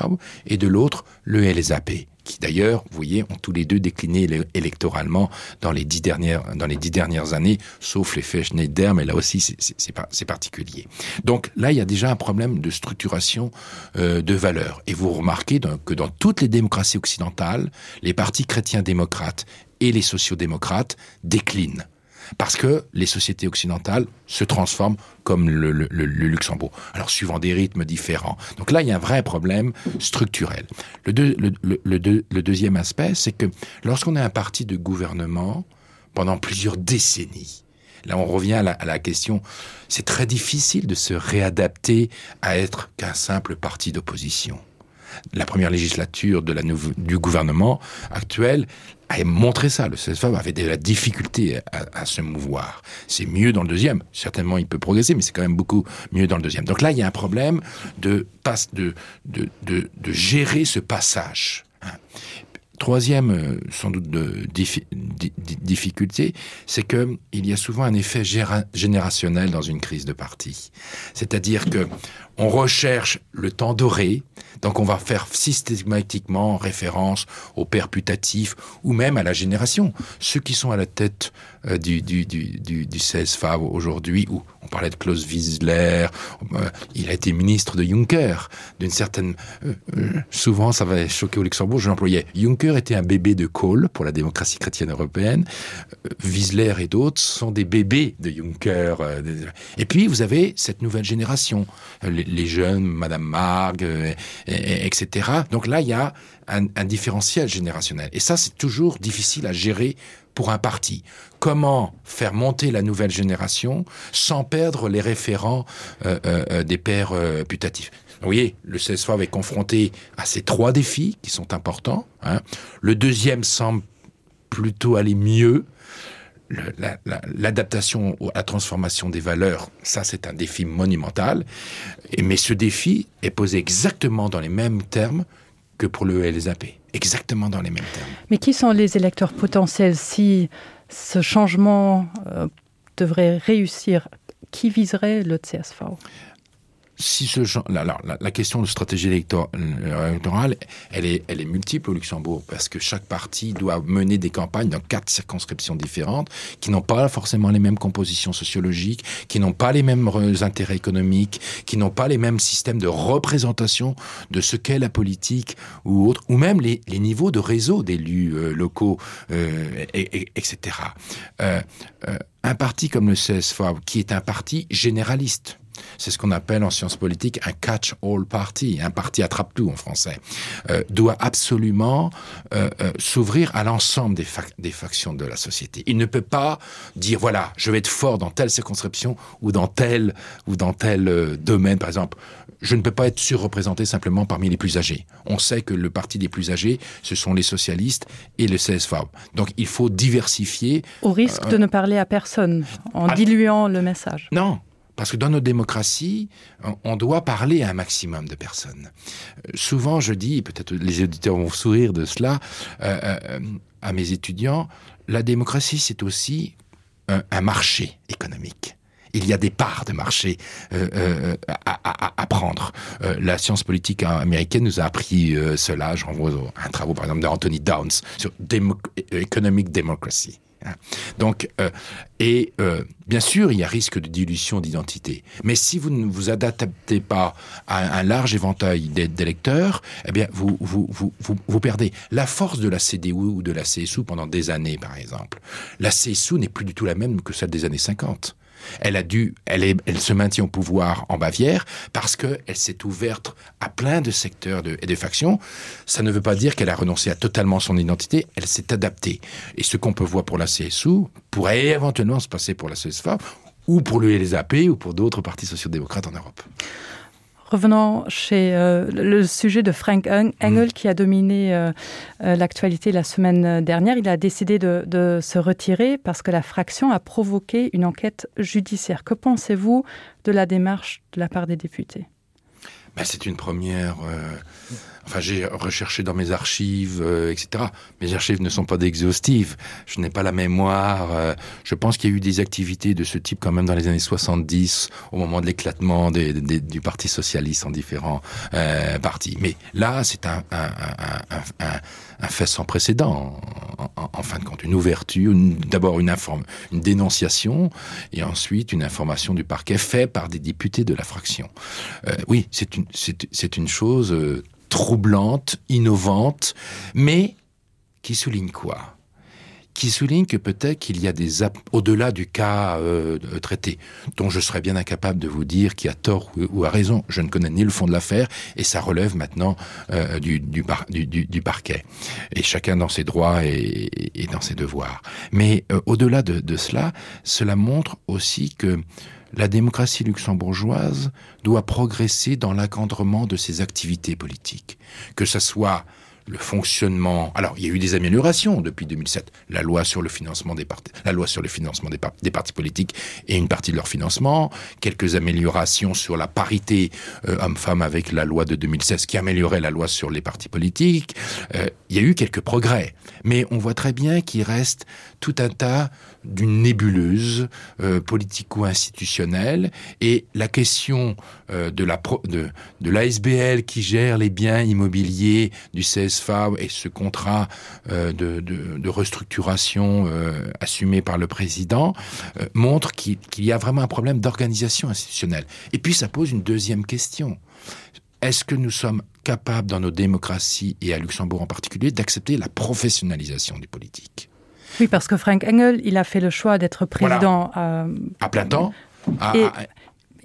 et de l'autre le LSAP qui d'ailleurs, vous voyez, ont tous les deux décliné électoralement dans les dix dernières, dans les dix dernières années, sauf l'effet Schneider, mais là aussi c'est particulier. Donc là, il y a déjà un problème de structuration euh, de valeurs. Et vous remarquez donc, que dans toutes les démocraties occidentales, les partis chrétiens démocrates et les sociodémocrates déclinent parce que les sociétés occidentales se transforment comme le, le, le, le Luxembourg alors suivant des rythmes différents donc là il y a un vrai problème structurel le, deux, le, le, le, deux, le deuxième aspect c'est que lorsqu'on est un parti de gouvernement pendant plusieurs décennies là on revient à la, à la question c'est très difficile de se réadapter à être qu'un simple parti d'opposition la première législature de la du gouvernement actuel a montré ça le CSV avait de la difficulté à, à se mouvoir c'est mieux dans le deuxième certainement il peut progresser mais c'est quand même beaucoup mieux dans le deuxième donc là il y a un problème de passe de de, de, de gérer ce passage troisième euh, sans doute de diffi di difficulté c'est que il y a souvent un effet générationnel dans une crise de parti c'est à dire que on recherche le temps doré donc on va faire systématiquement référence au père putatif ou même à la génération ceux qui sont à la tête euh, du, du, du, du, du 16 Fav aujourd'hui où on parlait de Klaus Wiesler euh, il a été ministre de Juncker d'une certaine euh, euh, souvent ça va choquer au Luxembourg je l'employais Juncker était un bébé de Kohl pour la démocratie chrétienne européenne euh, Wiesler et d'autres sont des bébés de Juncker euh, et puis vous avez cette nouvelle génération les, les jeunes madame Marg euh, et, et, etc donc là il y a un, un différentiel générationnel et ça c'est toujours difficile à gérer pour un parti. Comment faire monter la nouvelle génération sans perdre les référents euh, euh, euh des pères euh, putatifs Vous voyez, le CSV est confronté à ces trois défis qui sont importants. Hein. Le deuxième semble plutôt aller mieux. L'adaptation la, la, à la transformation des valeurs, ça c'est un défi monumental. Et, mais ce défi est posé exactement dans les mêmes termes que pour le LSAP exactement dans les mêmes termes. Mais qui sont les électeurs potentiels si ce changement euh, devrait réussir qui viserait le CSV si ce genre, la, la, la question de stratégie électorale elle est, elle est multiple au Luxembourg parce que chaque parti doit mener des campagnes dans quatre circonscriptions différentes qui n'ont pas forcément les mêmes compositions sociologiques, qui n'ont pas les mêmes intérêts économiques, qui n'ont pas les mêmes systèmes de représentation de ce qu'est la politique ou autre, ou même les, les niveaux de réseau d'élus euh, locaux, euh, et, et, etc. Euh, euh, un parti comme le CSV, qui est un parti généraliste, c'est ce qu'on appelle en sciences politiques un catch-all party, un parti attrape-tout en français, euh, doit absolument euh, euh, s'ouvrir à l'ensemble des, fac des factions de la société. Il ne peut pas dire voilà, je vais être fort dans telle circonscription ou dans tel ou dans tel euh, domaine par exemple. Je ne peux pas être surreprésenté simplement parmi les plus âgés. On sait que le parti des plus âgés, ce sont les socialistes et le CSV. Donc il faut diversifier. Au risque euh, de ne parler à personne en à... diluant le message. Non, Parce que dans nos démocraties, on doit parler à un maximum de personnes. Euh, souvent, je dis, peut-être les auditeurs vont sourire de cela, euh, euh, à mes étudiants, la démocratie, c'est aussi un, un marché économique. Il y a des parts de marché euh, euh, à, à, à prendre. Euh, la science politique américaine nous a appris euh, cela. Je renvoie un travaux par exemple d'Anthony Downs sur Demo Economic Democracy. Donc euh, et euh, bien sûr, il y a risque de dilution d'identité. Mais si vous ne vous adaptez pas à un large éventail d'électeurs, eh bien vous, vous, vous, vous, vous perdez la force de la CDU ou de la CSU pendant des années par exemple. La CSU n'est plus du tout la même que celle des années 50 elle a dû elle est elle se maintient au pouvoir en Bavière parce que elle s'est ouverte à plein de secteurs de, et de factions ça ne veut pas dire qu'elle a renoncé à totalement son identité elle s'est adaptée et ce qu'on peut voir pour la CSU pourrait éventuellement se passer pour la CSFA ou pour le LSAP ou pour d'autres partis sociaux-démocrates en Europe. Revenons chez euh, le sujet de Frank Engel mmh. qui a dominé euh, euh, l'actualité la semaine dernière. Il a décidé de, de se retirer parce que la fraction a provoqué une enquête judiciaire. Que pensez-vous de la démarche de la part des députés? C'est une première euh, enfin j'ai recherché dans mes archives euh, etc mes archives ne sont pas d'exhaustives je n'ai pas la mémoire euh, je pense qu'il y a eu des activités de ce type quand même dans les années 70 au moment de l'éclatement des, des, du parti socialiste en différents euh, partis mais là c'est un, un, un, un, un, un fait sans précédent en, en, en fin de compte une ouverture d'abord une informe une dénonciation et ensuite une information du parquet fait par des députés de la fraction euh, oui c'est une c'est une chose euh, troublante, innovante, mais qui souligne quoi qui souligne que peut-être qu'il y a des au-delà du cas euh, traité dont je serais bien incapable de vous dire qui a tort ou, ou a raison je ne connais ni le fond de l'affaire et ça relève maintenant euh, du, du, bar, du, du, du parquet et chacun dans ses droits et, et dans ses devoirs mais euh, au-delà de, de cela cela montre aussi que la démocratie luxembourgeoise doit progresser dans l'encadrement de ses activités politiques que ce soit le fonctionnement alors il y a eu des améliorations depuis 2007 la loi sur le financement des partis la loi sur le financement des, par des partis politiques et une partie de leur financement quelques améliorations sur la parité euh, homme femme avec la loi de 2016 qui améliorait la loi sur les partis politiques euh, il y a eu quelques progrès mais on voit très bien qu'il reste tout un tas d'une nébuleuse euh, politico-institutionnelle et la question euh, de la pro, de, de l'ASBL qui gère les biens immobiliers du CSFA et ce contrat euh, de, de, de restructuration euh, assumé par le président euh, montre qu'il qu y a vraiment un problème d'organisation institutionnelle. Et puis ça pose une deuxième question. Est-ce que nous sommes capables dans nos démocraties et à Luxembourg en particulier d'accepter la professionnalisation du politique? Oui, parce que Frank Engel, il a fait le choix d'être président voilà. euh, à plein temps à, et à,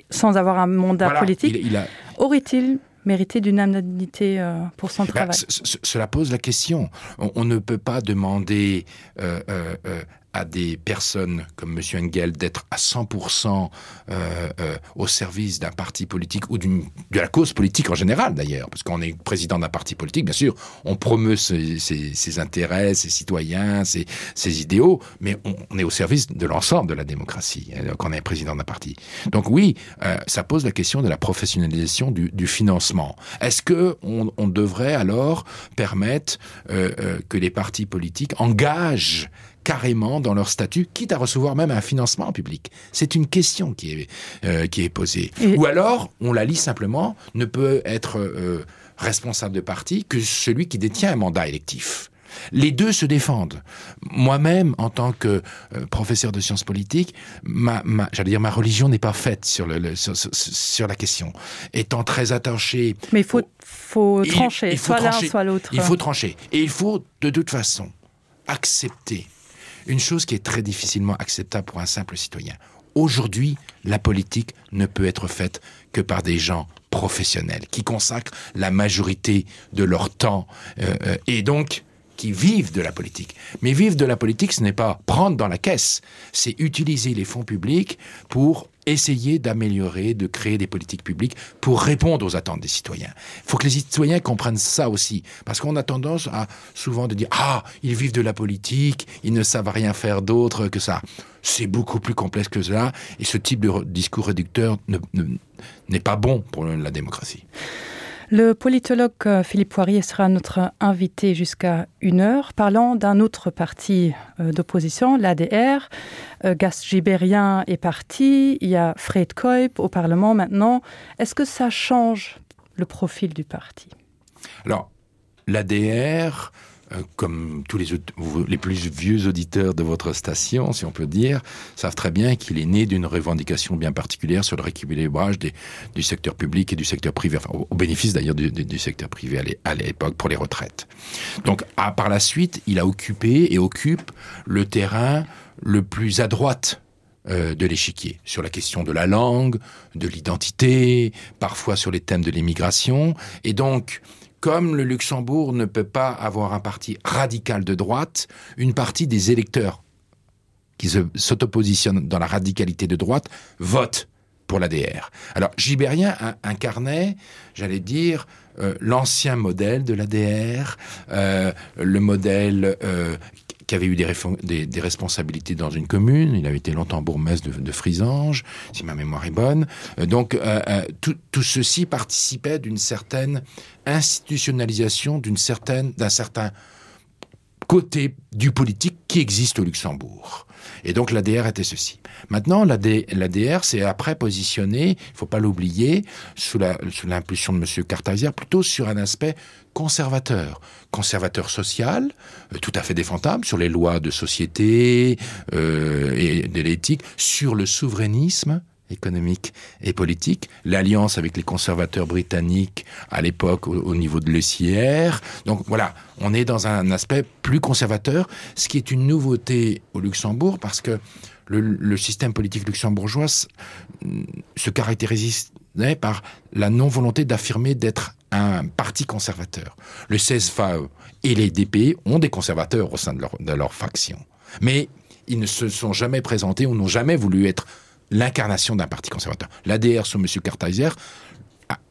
sans avoir un mandat voilà, politique. Il, il a... Aurait-il mérité d'une indemnité euh, pour son travail ben, Cela pose la question. On, on ne peut pas demander euh, euh, euh à des personnes comme monsieur Engel d'être à 100% euh, euh, au service d'un parti politique ou d'une de la cause politique en général d'ailleurs parce qu'on est président d'un parti politique bien sûr on promeut ses, ses, ses intérêts ses citoyens ses, ses idéaux mais on, on est au service de l'ensemble de la démocratie quand on est président d'un parti donc oui euh, ça pose la question de la professionnalisation du, du financement est-ce que on, on devrait alors permettre euh, euh, que les partis politiques engagent carrément dans leur statut, quitte à recevoir même un financement public. C'est une question qui est, euh, qui est posée. Et... Ou alors, on la lit simplement, ne peut être euh, responsable de parti que celui qui détient un mandat électif. Les deux se défendent. Moi-même, en tant que euh, professeur de sciences politiques, ma, ma, j'allais dire ma religion n'est pas faite sur, le, le, sur, sur, sur la question. Étant très attaché. Mais il faut, faut trancher, il, il faut soit l'un, soit l'autre. Il faut trancher. Et il faut, de toute façon, accepter une chose qui est très difficilement acceptable pour un simple citoyen. Aujourd'hui, la politique ne peut être faite que par des gens professionnels qui consacrent la majorité de leur temps euh, euh et donc qui vivent de la politique. Mais vivre de la politique, ce n'est pas prendre dans la caisse, c'est utiliser les fonds publics pour essayer d'améliorer, de créer des politiques publiques pour répondre aux attentes des citoyens. Il faut que les citoyens comprennent ça aussi, parce qu'on a tendance à souvent de dire ah ils vivent de la politique, ils ne savent rien faire d'autre que ça. C'est beaucoup plus complexe que cela et ce type de discours réducteur n'est ne, ne, pas bon pour la démocratie. Le politologue euh, Philippe Poirier sera notre invité jusqu'à une heure parlant d'un autre parti euh, d'opposition, l'ADR. Euh, Gas Gibérien est parti, il y a Fred Koip au Parlement maintenant. Est-ce que ça change le profil du parti Alors l'ADR, Euh, comme tous les, les plus vieux auditeurs de votre station, si on peut dire, savent très bien qu'il est né d'une revendication bien particulière sur le rééquilibrage des, du secteur public et du secteur privé, enfin, au, au bénéfice d'ailleurs du, du, du secteur privé à l'époque pour les retraites. Donc à, par la suite, il a occupé et occupe le terrain le plus à droite euh, de l'échiquier sur la question de la langue, de l'identité, parfois sur les thèmes de l'immigration et donc comme le Luxembourg ne peut pas avoir un parti radical de droite, une partie des électeurs qui s'autopositionnent dans la radicalité de droite votent pour l'ADR. Alors Gibérien incarnait, j'allais dire, euh, l'ancien modèle de l'ADR, euh, le modèle euh, qui avait eu des, des, des responsabilités dans une commune, il avait été longtemps bourgmestre de, de Frisange, si ma mémoire est bonne. Euh, donc euh, euh, tout, tout ceci participait d'une certaine institutionnalisation d'une certaine d'un certain côté du politique qui existe au Luxembourg. Et donc l'ADR était ceci. Maintenant l'ADR s'est après positionné, il faut pas l'oublier, sous l'impulsion de M. Cartazière, plutôt sur un aspect conservateur, conservateur social, euh, tout à fait défendable sur les lois de société euh, et de l'éthique, sur le souverainisme, économique et politique, l'alliance avec les conservateurs britanniques à l'époque au, au niveau de l'ECR. Donc voilà, on est dans un aspect plus conservateur, ce qui est une nouveauté au Luxembourg parce que le, le système politique luxembourgeois se caractérise par la non-volonté d'affirmer d'être un parti conservateur. Le CSV et les DP ont des conservateurs au sein de leur, de leur faction. Mais ils ne se sont jamais présentés ou n'ont jamais voulu être l'incarnation d'un parti conservateur. L'ADR sous M. Kartheiser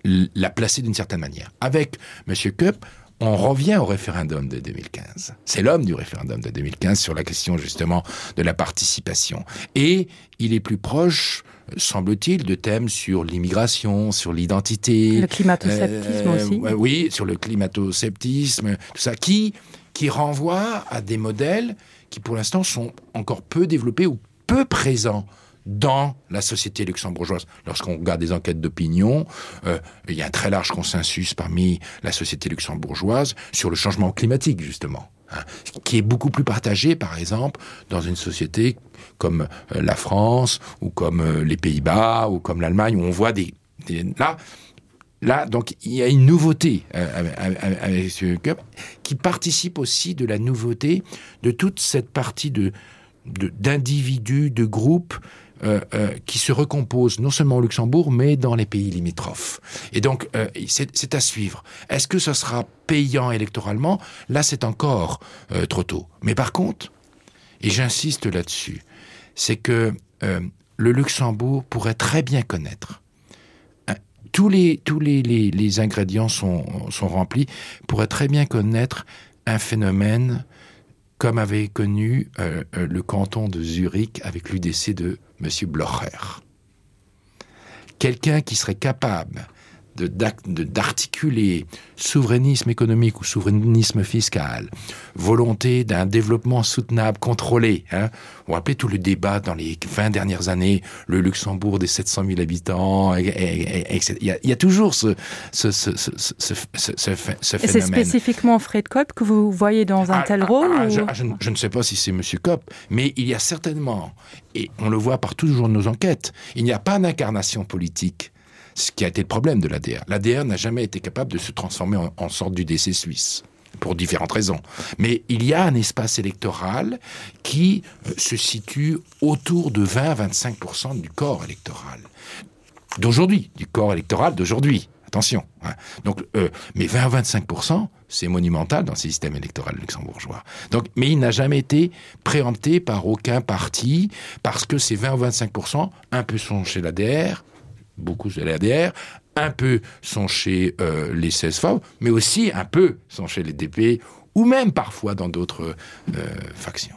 l'a placé d'une certaine manière. Avec M. Koepp, on revient au référendum de 2015. C'est l'homme du référendum de 2015 sur la question justement de la participation. Et il est plus proche, semble-t-il, de thèmes sur l'immigration, sur l'identité. Le climato-sceptisme euh, aussi. Oui, sur le climato-sceptisme, tout ça, qui, qui renvoie à des modèles qui pour l'instant sont encore peu développés ou peu présents dans la société luxembourgeoise. Lorsqu'on regarde des enquêtes d'opinion, euh, il y a un très large consensus parmi la société luxembourgeoise sur le changement climatique justement hein, qui est beaucoup plus partagé par exemple dans une société comme euh, la France ou comme euh, les Pays-Bas ou comme l'Allemagne où on voit des, des là là donc il y a une nouveauté euh, avec ce cup qui participe aussi de la nouveauté de toute cette partie de d'individus de, de groupes euh, euh, qui se recompose non seulement au Luxembourg mais dans les pays limitrophes. Et donc euh, c'est à suivre. Est-ce que ce sera payant électoralement? Là c'est encore euh, trop tôt. Mais par contre, et j'insiste là-dessus, c'est que euh, le Luxembourg pourrait très bien connaître tous les, tous les, les, les ingrédients sont, sont remplis, pourrait très bien connaître un phénomène comme avait connu euh, euh, le canton de Zurich avec l'UDC de M. Blocher. Quelqu'un qui serait capable d'articuler souverainisme économique ou souverainisme fiscal, volonté d'un développement soutenable contrôlé hein. On rappelait tout le débat dans les 20 dernières années, le Luxembourg des 700 000 habitants et, et, et, et, il, y a, il y a toujours ce, ce, ce, ce, ce, ce, ce phénomène. C'est spécifiquement Fred Kopp que vous voyez dans un ah, tel ah, rôle ah, ou... je, ah, je, je ne sais pas si c'est monsieur Kopp, mais il y a certainement et on le voit par toujours nos enquêtes, il n'y a pas d'incarnation politique ce qui a été le problème de l'ADR. L'ADR n'a jamais été capable de se transformer en, en sorte du décès suisse pour différentes raisons. Mais il y a un espace électoral qui euh, se situe autour de 20 à 25% du corps électoral d'aujourd'hui, du corps électoral d'aujourd'hui. Attention. Hein. Donc, euh, mais 20 à 25%, c'est monumental dans le système électoral luxembourgeois. Donc, mais il n'a jamais été préempté par aucun parti parce que ces 20 ou 25%, un peu sont chez l'ADR, beaucoup de l'ADR, un peu sont chez euh, les CSV, mais aussi un peu sont chez les DP ou même parfois dans d'autres euh, factions.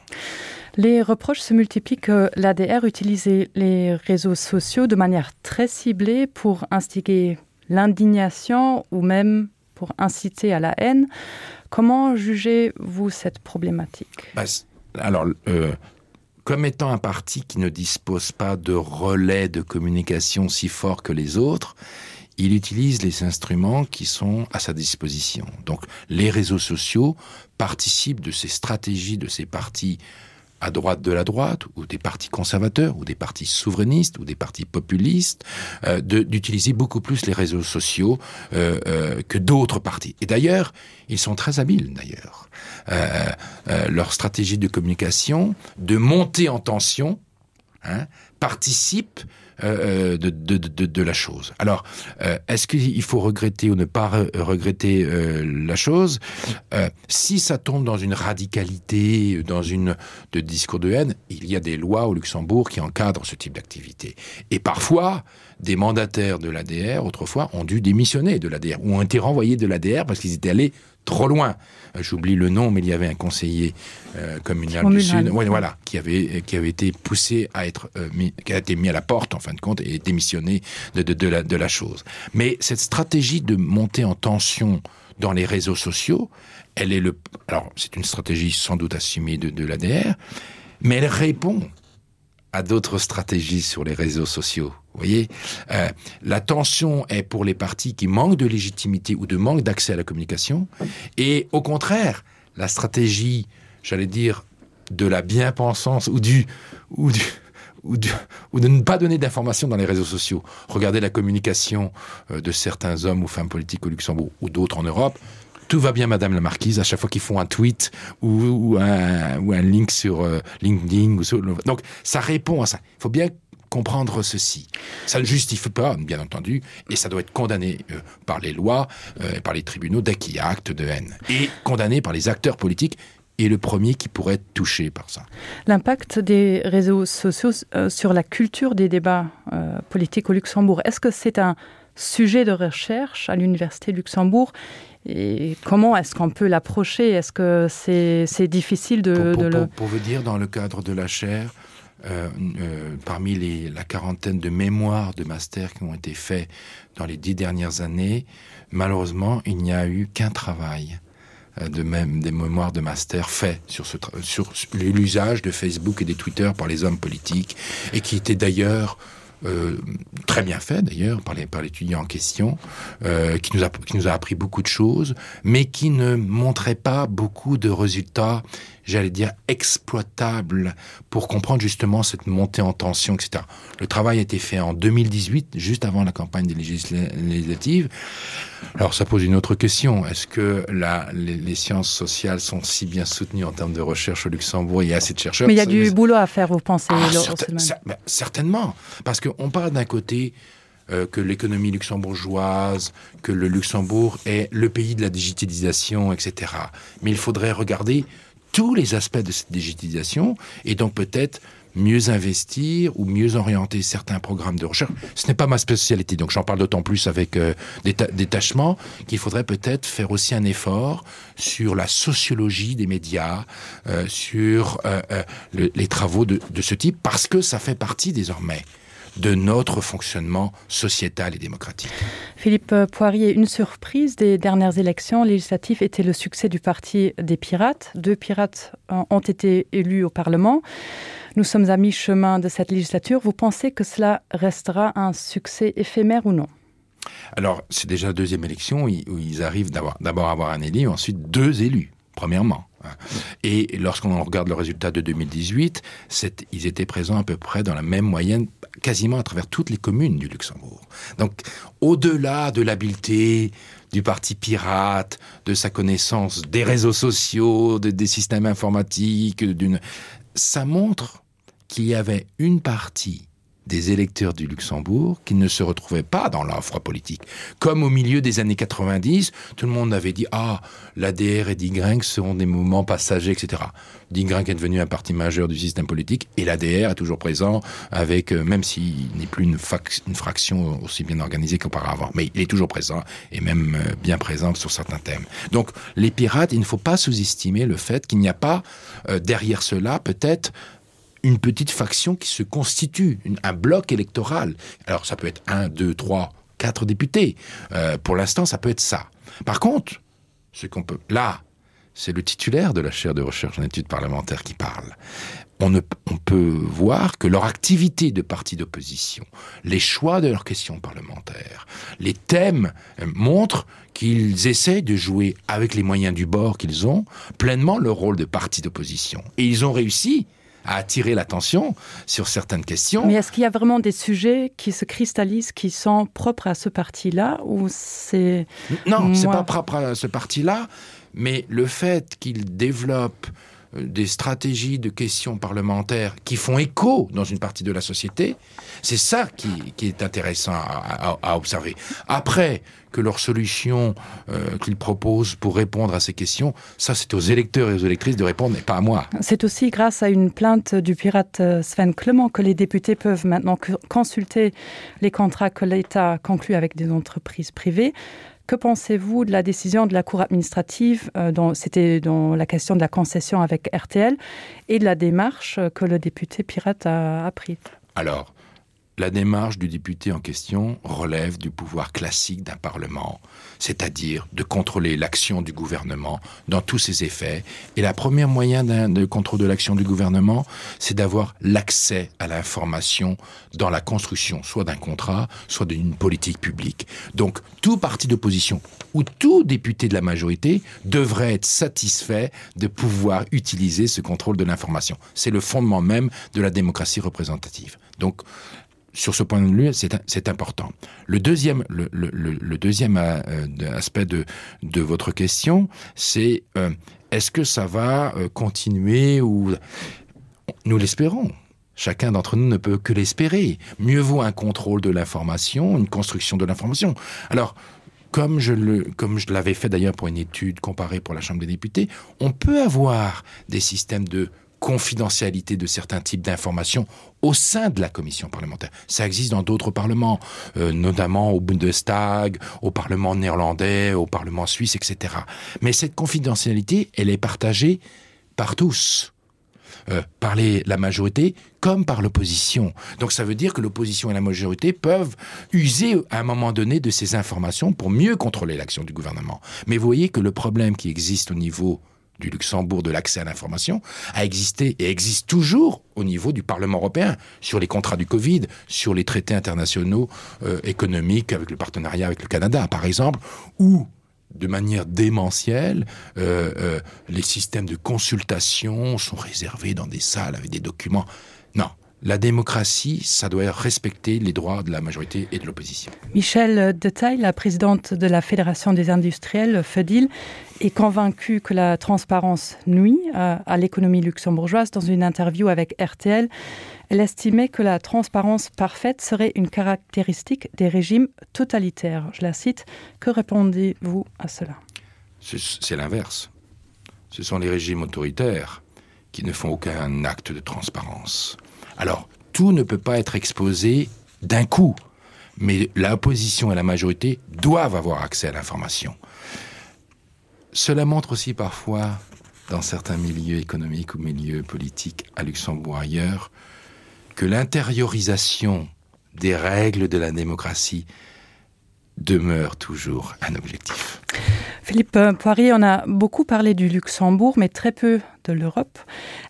Les reproches se multiplient que l'ADR utilisait les réseaux sociaux de manière très ciblée pour instiguer l'indignation ou même pour inciter à la haine. Comment jugez-vous cette problématique bah, Alors euh, comme étant un parti qui ne dispose pas de relais de communication si fort que les autres, il utilise les instruments qui sont à sa disposition. Donc les réseaux sociaux participent de ces stratégies de ces partis à droite de la droite ou des partis conservateurs ou des partis souverainistes ou des partis populistes euh, d'utiliser beaucoup plus les réseaux sociaux euh, euh, que d'autres partis. Et d'ailleurs, ils sont très habiles d'ailleurs. Euh, euh, leur stratégie de communication de monter en tension hein, participe euh, euh, de, de, de, de la chose. Alors euh, est-ce qu'il faut regretter ou ne pas re regretter euh, la chose euh, Si ça tombe dans une radicalité, dans une de discours de haine, il y a des lois au Luxembourg qui encadrent ce type d'activité. Et parfois, des mandataires de l'ADR autrefois ont dû démissionner de l'ADR ou ont été renvoyés de l'ADR parce qu'ils étaient allés trop loin. Euh, j'oublie le nom, mais il y avait un conseiller euh, communal du Sud ouais, voilà, qui, avait, qui avait été poussé à être euh, mis, qui a été mis à la porte en fin de compte et démissionné de, de, de, la, de la chose. Mais cette stratégie de monter en tension dans les réseaux sociaux, elle est le alors c'est une stratégie sans doute assumée de, de l'ADR, mais elle répond à d'autres stratégies sur les réseaux sociaux. Vous voyez euh, la tension est pour les partis qui manquent de légitimité ou de manque d'accès à la communication et au contraire la stratégie j'allais dire de la bien-pensance ou du ou du ou, du, ou de ne pas donner d'informations dans les réseaux sociaux regardez la communication euh, de certains hommes ou femmes politiques au Luxembourg ou d'autres en Europe tout va bien madame la marquise à chaque fois qu'ils font un tweet ou, ou, un, ou un link sur euh, LinkedIn ou sur, donc ça répond à ça il faut bien comprendre ceci. Ça ne justifie pas, bien entendu, et ça doit être condamné euh, par les lois euh, et par les tribunaux dès qu'il y a acte de haine et condamné par les acteurs politiques et le premier qui pourrait être touché par ça. L'impact des réseaux sociaux euh, sur la culture des débats euh, politiques au Luxembourg, est-ce que c'est un sujet de recherche à l'université Luxembourg et comment est-ce qu'on peut l'approcher Est-ce que c'est difficile de, pour, pour, de le pour, pour vous dire dans le cadre de la chaire, euh, euh, parmi les, la quarantaine de mémoires de master qui ont été faits dans les dix dernières années, malheureusement, il n'y a eu qu'un travail euh, de même des mémoires de master fait sur ce sur l'usage de Facebook et des Twitter par les hommes politiques et qui était d'ailleurs euh, très bien fait d'ailleurs par les par l'étudiant en question euh, qui nous a qui nous a appris beaucoup de choses mais qui ne montrait pas beaucoup de résultats j'allais dire exploitable pour comprendre justement cette montée en tension etc le travail a été fait en 2018 juste avant la campagne des législatives alors ça pose une autre question est-ce que la les, les sciences sociales sont si bien soutenues en termes de recherche au luxembourg il y a assez de chercheurs mais il y a du mais... boulot à faire vous pensez ah, certain, certainement parce que on parle d'un côté euh, que l'économie luxembourgeoise que le luxembourg est le pays de la digitalisation etc mais il faudrait regarder tous les aspects de cette digitalisation et donc peut-être mieux investir ou mieux orienter certains programmes de recherche. Ce n'est pas ma spécialité, donc j'en parle d'autant plus avec euh, détachement qu'il faudrait peut-être faire aussi un effort sur la sociologie des médias, euh, sur euh, euh, le, les travaux de, de ce type, parce que ça fait partie désormais de notre fonctionnement sociétal et démocratique. Philippe Poirier, une surprise des dernières élections législatives était le succès du parti des pirates. Deux pirates euh, ont été élus au Parlement. Nous sommes à mi-chemin de cette législature. Vous pensez que cela restera un succès éphémère ou non? Alors c'est déjà la deuxième élection où ils arrivent d'abord avoir un élu, ensuite deux élus premièrement. Et lorsqu'on regarde le résultat de 2018, ils étaient présents à peu près dans la même moyenne quasiment à travers toutes les communes du Luxembourg. Donc au-delà de l'habileté du parti pirate, de sa connaissance des réseaux sociaux, de, des systèmes informatiques, d'une ça montre qu'il y avait une partie des électeurs du Luxembourg qui ne se retrouvaient pas dans l'offre politique. Comme au milieu des années 90, tout le monde avait dit ah l'ADR et Digrinck seront des mouvements passagers, etc. Digrinck est devenu un parti majeur du système politique et l'ADR est toujours présent avec euh, même s'il n'est plus une, une fraction aussi bien organisée qu'auparavant, mais il est toujours présent et même euh, bien présent sur certains thèmes. Donc les pirates, il ne faut pas sous-estimer le fait qu'il n'y a pas euh, derrière cela peut-être une petite faction qui se constitue une, un bloc électoral alors ça peut être un deux trois quatre députés euh, pour l'instant ça peut être ça par contre ce qu'on peut là c'est le titulaire de la chaire de recherche en études parlementaires qui parle on ne on peut voir que leur activité de parti d'opposition les choix de leurs questions parlementaires les thèmes euh, montrent qu'ils essaient de jouer avec les moyens du bord qu'ils ont pleinement leur rôle de parti d'opposition et ils ont réussi à à attirer l'attention sur certaines questions. Mais est-ce qu'il y a vraiment des sujets qui se cristallisent, qui sont propres à ce parti-là ou c'est Non, moins... c'est pas propre à ce parti-là, mais le fait qu'il développe euh, des stratégies de questions parlementaires qui font écho dans une partie de la société, c'est ça qui, qui est intéressant à, à, à observer. Après que leur solution euh, qu'ils proposent pour répondre à ces questions, ça c'est aux électeurs et aux électrices de répondre et pas à moi. C'est aussi grâce à une plainte du pirate euh, Sven Clement que les députés peuvent maintenant consulter les contrats que l'État conclut avec des entreprises privées. Que pensez-vous de la décision de la cour administrative euh, dont c'était dans la question de la concession avec RTL et de la démarche que le député pirate a, a prise Alors, la démarche du député en question relève du pouvoir classique d'un parlement, c'est-à-dire de contrôler l'action du gouvernement dans tous ses effets. Et la première moyen de contrôle de l'action du gouvernement, c'est d'avoir l'accès à l'information dans la construction soit d'un contrat, soit d'une politique publique. Donc tout parti d'opposition ou tout député de la majorité devrait être satisfait de pouvoir utiliser ce contrôle de l'information. C'est le fondement même de la démocratie représentative. Donc sur ce point de vue c'est important. Le deuxième, le, le, le deuxième euh, aspect de, de votre question, c'est euh, est-ce que ça va euh, continuer ou nous l'espérons. Chacun d'entre nous ne peut que l'espérer. Mieux vaut un contrôle de l'information, une construction de l'information. Alors, comme je le, comme je l'avais fait d'ailleurs pour une étude comparée pour la Chambre des députés, on peut avoir des systèmes de confidentialité de certains types d'informations au sein de la commission parlementaire. Ça existe dans d'autres parlements, euh, notamment au Bundestag, au Parlement néerlandais, au Parlement suisse, etc. Mais cette confidentialité, elle est partagée par tous. Euh, par les, la majorité comme par l'opposition. Donc ça veut dire que l'opposition et la majorité peuvent user à un moment donné de ces informations pour mieux contrôler l'action du gouvernement. Mais vous voyez que le problème qui existe au niveau du Luxembourg de l'accès à l'information a existé et existe toujours au niveau du Parlement européen sur les contrats du Covid, sur les traités internationaux euh, économiques avec le partenariat avec le Canada par exemple, où de manière démentielle, euh, euh, les systèmes de consultation sont réservés dans des salles avec des documents. Non, la démocratie, ça doit respecter les droits de la majorité et de l'opposition. Michel Detail, la présidente de la Fédération des industriels FEDIL, est convaincue que la transparence nuit euh, à l'économie luxembourgeoise. Dans une interview avec RTL, elle estimait que la transparence parfaite serait une caractéristique des régimes totalitaires. Je la cite, que répondez-vous à cela C'est l'inverse. Ce sont les régimes autoritaires qui ne font aucun acte de transparence. Alors, tout ne peut pas être exposé d'un coup, mais l'opposition et la majorité doivent avoir accès à l'information. Cela montre aussi parfois, dans certains milieux économiques ou milieux politiques à Luxembourg ailleurs, que l'intériorisation des règles de la démocratie demeure toujours un objectif. Philippe Poirier, on a beaucoup parlé du Luxembourg, mais très peu de l'Europe.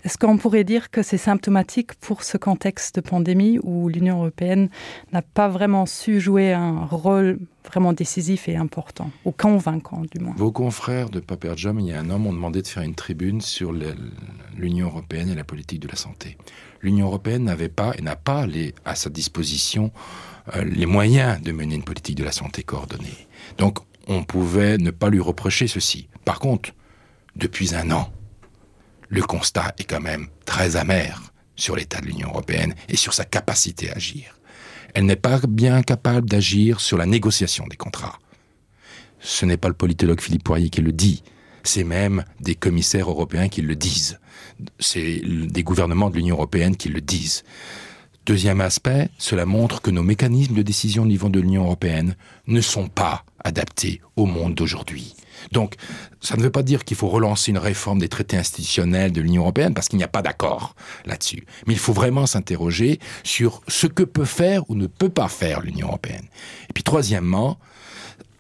Est-ce qu'on pourrait dire que c'est symptomatique pour ce contexte de pandémie où l'Union européenne n'a pas vraiment su jouer un rôle vraiment décisif et important, ou convaincant du moins Vos confrères de Paper Jam, il y a un an, m'ont demandé de faire une tribune sur l'Union européenne et la politique de la santé. L'Union européenne n'avait pas et n'a pas les, à sa disposition euh, les moyens de mener une politique de la santé coordonnée. Donc on pouvait ne pas lui reprocher ceci. Par contre, depuis un an, le constat est quand même très amer sur l'état de l'Union européenne et sur sa capacité à agir. Elle n'est pas bien capable d'agir sur la négociation des contrats. Ce n'est pas le politologue Philippe Poirier qui le dit, c'est même des commissaires européens qui le disent. C'est des gouvernements de l'Union européenne qui le disent. Deuxième aspect, cela montre que nos mécanismes de décision au niveau de l'Union européenne ne sont pas adaptés au monde d'aujourd'hui. Donc, ça ne veut pas dire qu'il faut relancer une réforme des traités institutionnels de l'Union européenne parce qu'il n'y a pas d'accord là-dessus. Mais il faut vraiment s'interroger sur ce que peut faire ou ne peut pas faire l'Union européenne. Et puis troisièmement,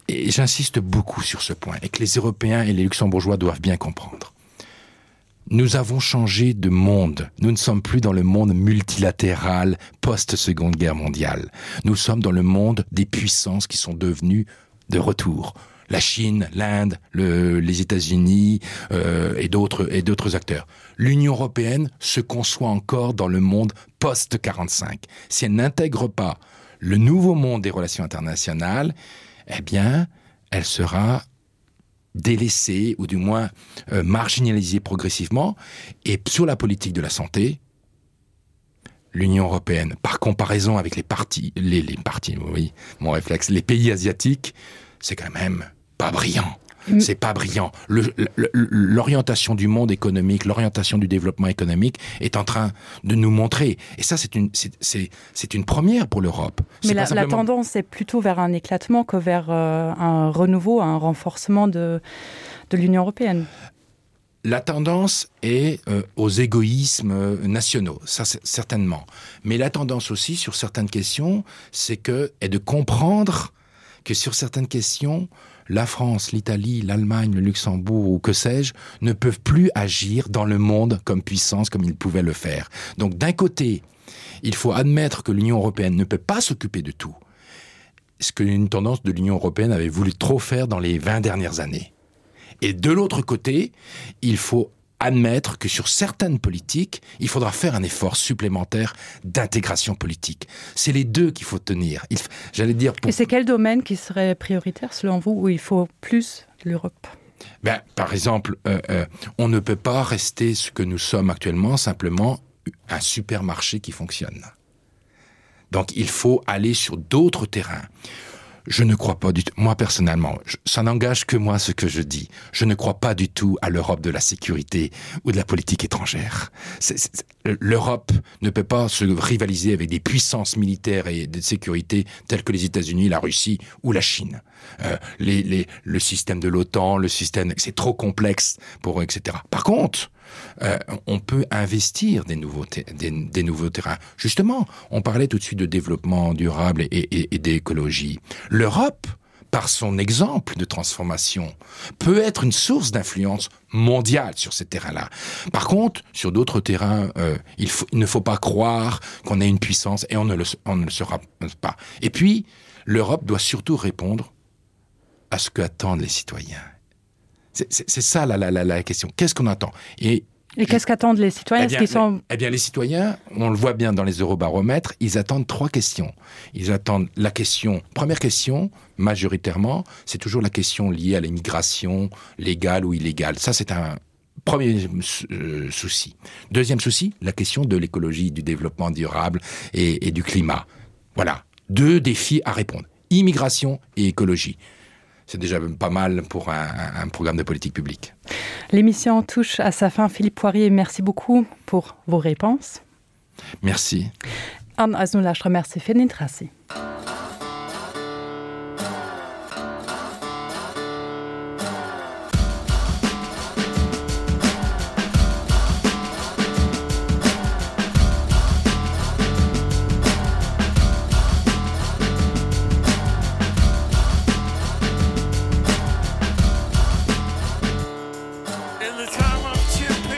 et j'insiste beaucoup sur ce point et que les Européens et les Luxembourgeois doivent bien comprendre. Nous avons changé de monde. Nous ne sommes plus dans le monde multilatéral post-seconde guerre mondiale. Nous sommes dans le monde des puissances qui sont devenues de retour. La Chine, l'Inde, le, les États-Unis euh, et d'autres acteurs. L'Union européenne se conçoit encore dans le monde post-45. Si elle n'intègre pas le nouveau monde des relations internationales, eh bien, elle sera délaissée ou du moins euh, marginalisée progressivement. Et sur la politique de la santé, l'Union européenne, par comparaison avec les partis, les, les partis, oui, mon réflexe, les pays asiatiques, c'est quand même pas brillant. Mm. C'est pas brillant. L'orientation du monde économique, l'orientation du développement économique est en train de nous montrer. Et ça, c'est une, une première pour l'Europe. Mais la, simplement... la tendance est plutôt vers un éclatement que vers euh, un renouveau, un renforcement de, de l'Union européenne. La tendance est euh, aux égoïsmes euh, nationaux, ça certainement. Mais la tendance aussi sur certaines questions, c'est que est de comprendre que sur certaines questions, la France, l'Italie, l'Allemagne, le Luxembourg ou que sais-je ne peuvent plus agir dans le monde comme puissance comme ils pouvaient le faire. Donc d'un côté, il faut admettre que l'Union européenne ne peut pas s'occuper de tout, ce qu'une tendance de l'Union européenne avait voulu trop faire dans les 20 dernières années. Et de l'autre côté, il faut admettre que sur certaines politiques, il faudra faire un effort supplémentaire d'intégration politique. C'est les deux qu'il faut tenir. J'allais dire pour... Et c'est quel domaine qui serait prioritaire selon vous où il faut plus l'Europe ben, Par exemple, euh, euh, on ne peut pas rester ce que nous sommes actuellement simplement un supermarché qui fonctionne. Donc il faut aller sur d'autres terrains. Je ne crois pas du tout moi personnellement je, ça n'engage que moi ce que je dis je ne crois pas du tout à l'Europe de la sécurité ou de la politique étrangère l'Europe ne peut pas se rivaliser avec des puissances militaires et de sécurité telles que les États-Unis la Russie ou la Chine euh, les, les le système de l'OTAN le système c'est trop complexe pour etc par contre euh, on peut investir des nouveaux des, des nouveaux terrains justement on parlait tout de suite de développement durable et, et, et d'écologie l'Europe par son exemple de transformation peut être une source d'influence mondiale sur ces terrains là par contre sur d'autres terrains euh, il, faut, il ne faut pas croire qu'on ait une puissance et on ne le, on ne le sera pas et puis l'Europe doit surtout répondre à ce que attendent les citoyens c'est ça la, la, la, la question qu'est-ce qu'on attend et Et qu'est-ce qu'attendent les citoyens eh bien, qui sont... eh bien les citoyens, on le voit bien dans les eurobaromètres, ils attendent trois questions. Ils attendent la question première question majoritairement, c'est toujours la question liée à l'immigration légale ou illégale. Ça c'est un premier euh, souci. Deuxième souci, la question de l'écologie, du développement durable et, et du climat. Voilà deux défis à répondre immigration et écologie c'est déjà pas mal pour un, un programme de politique publique. L'émission touche à sa fin Philippe Poirier, merci beaucoup pour vos réponses. Merci. An remercie fir den Interessi. In the time of chip.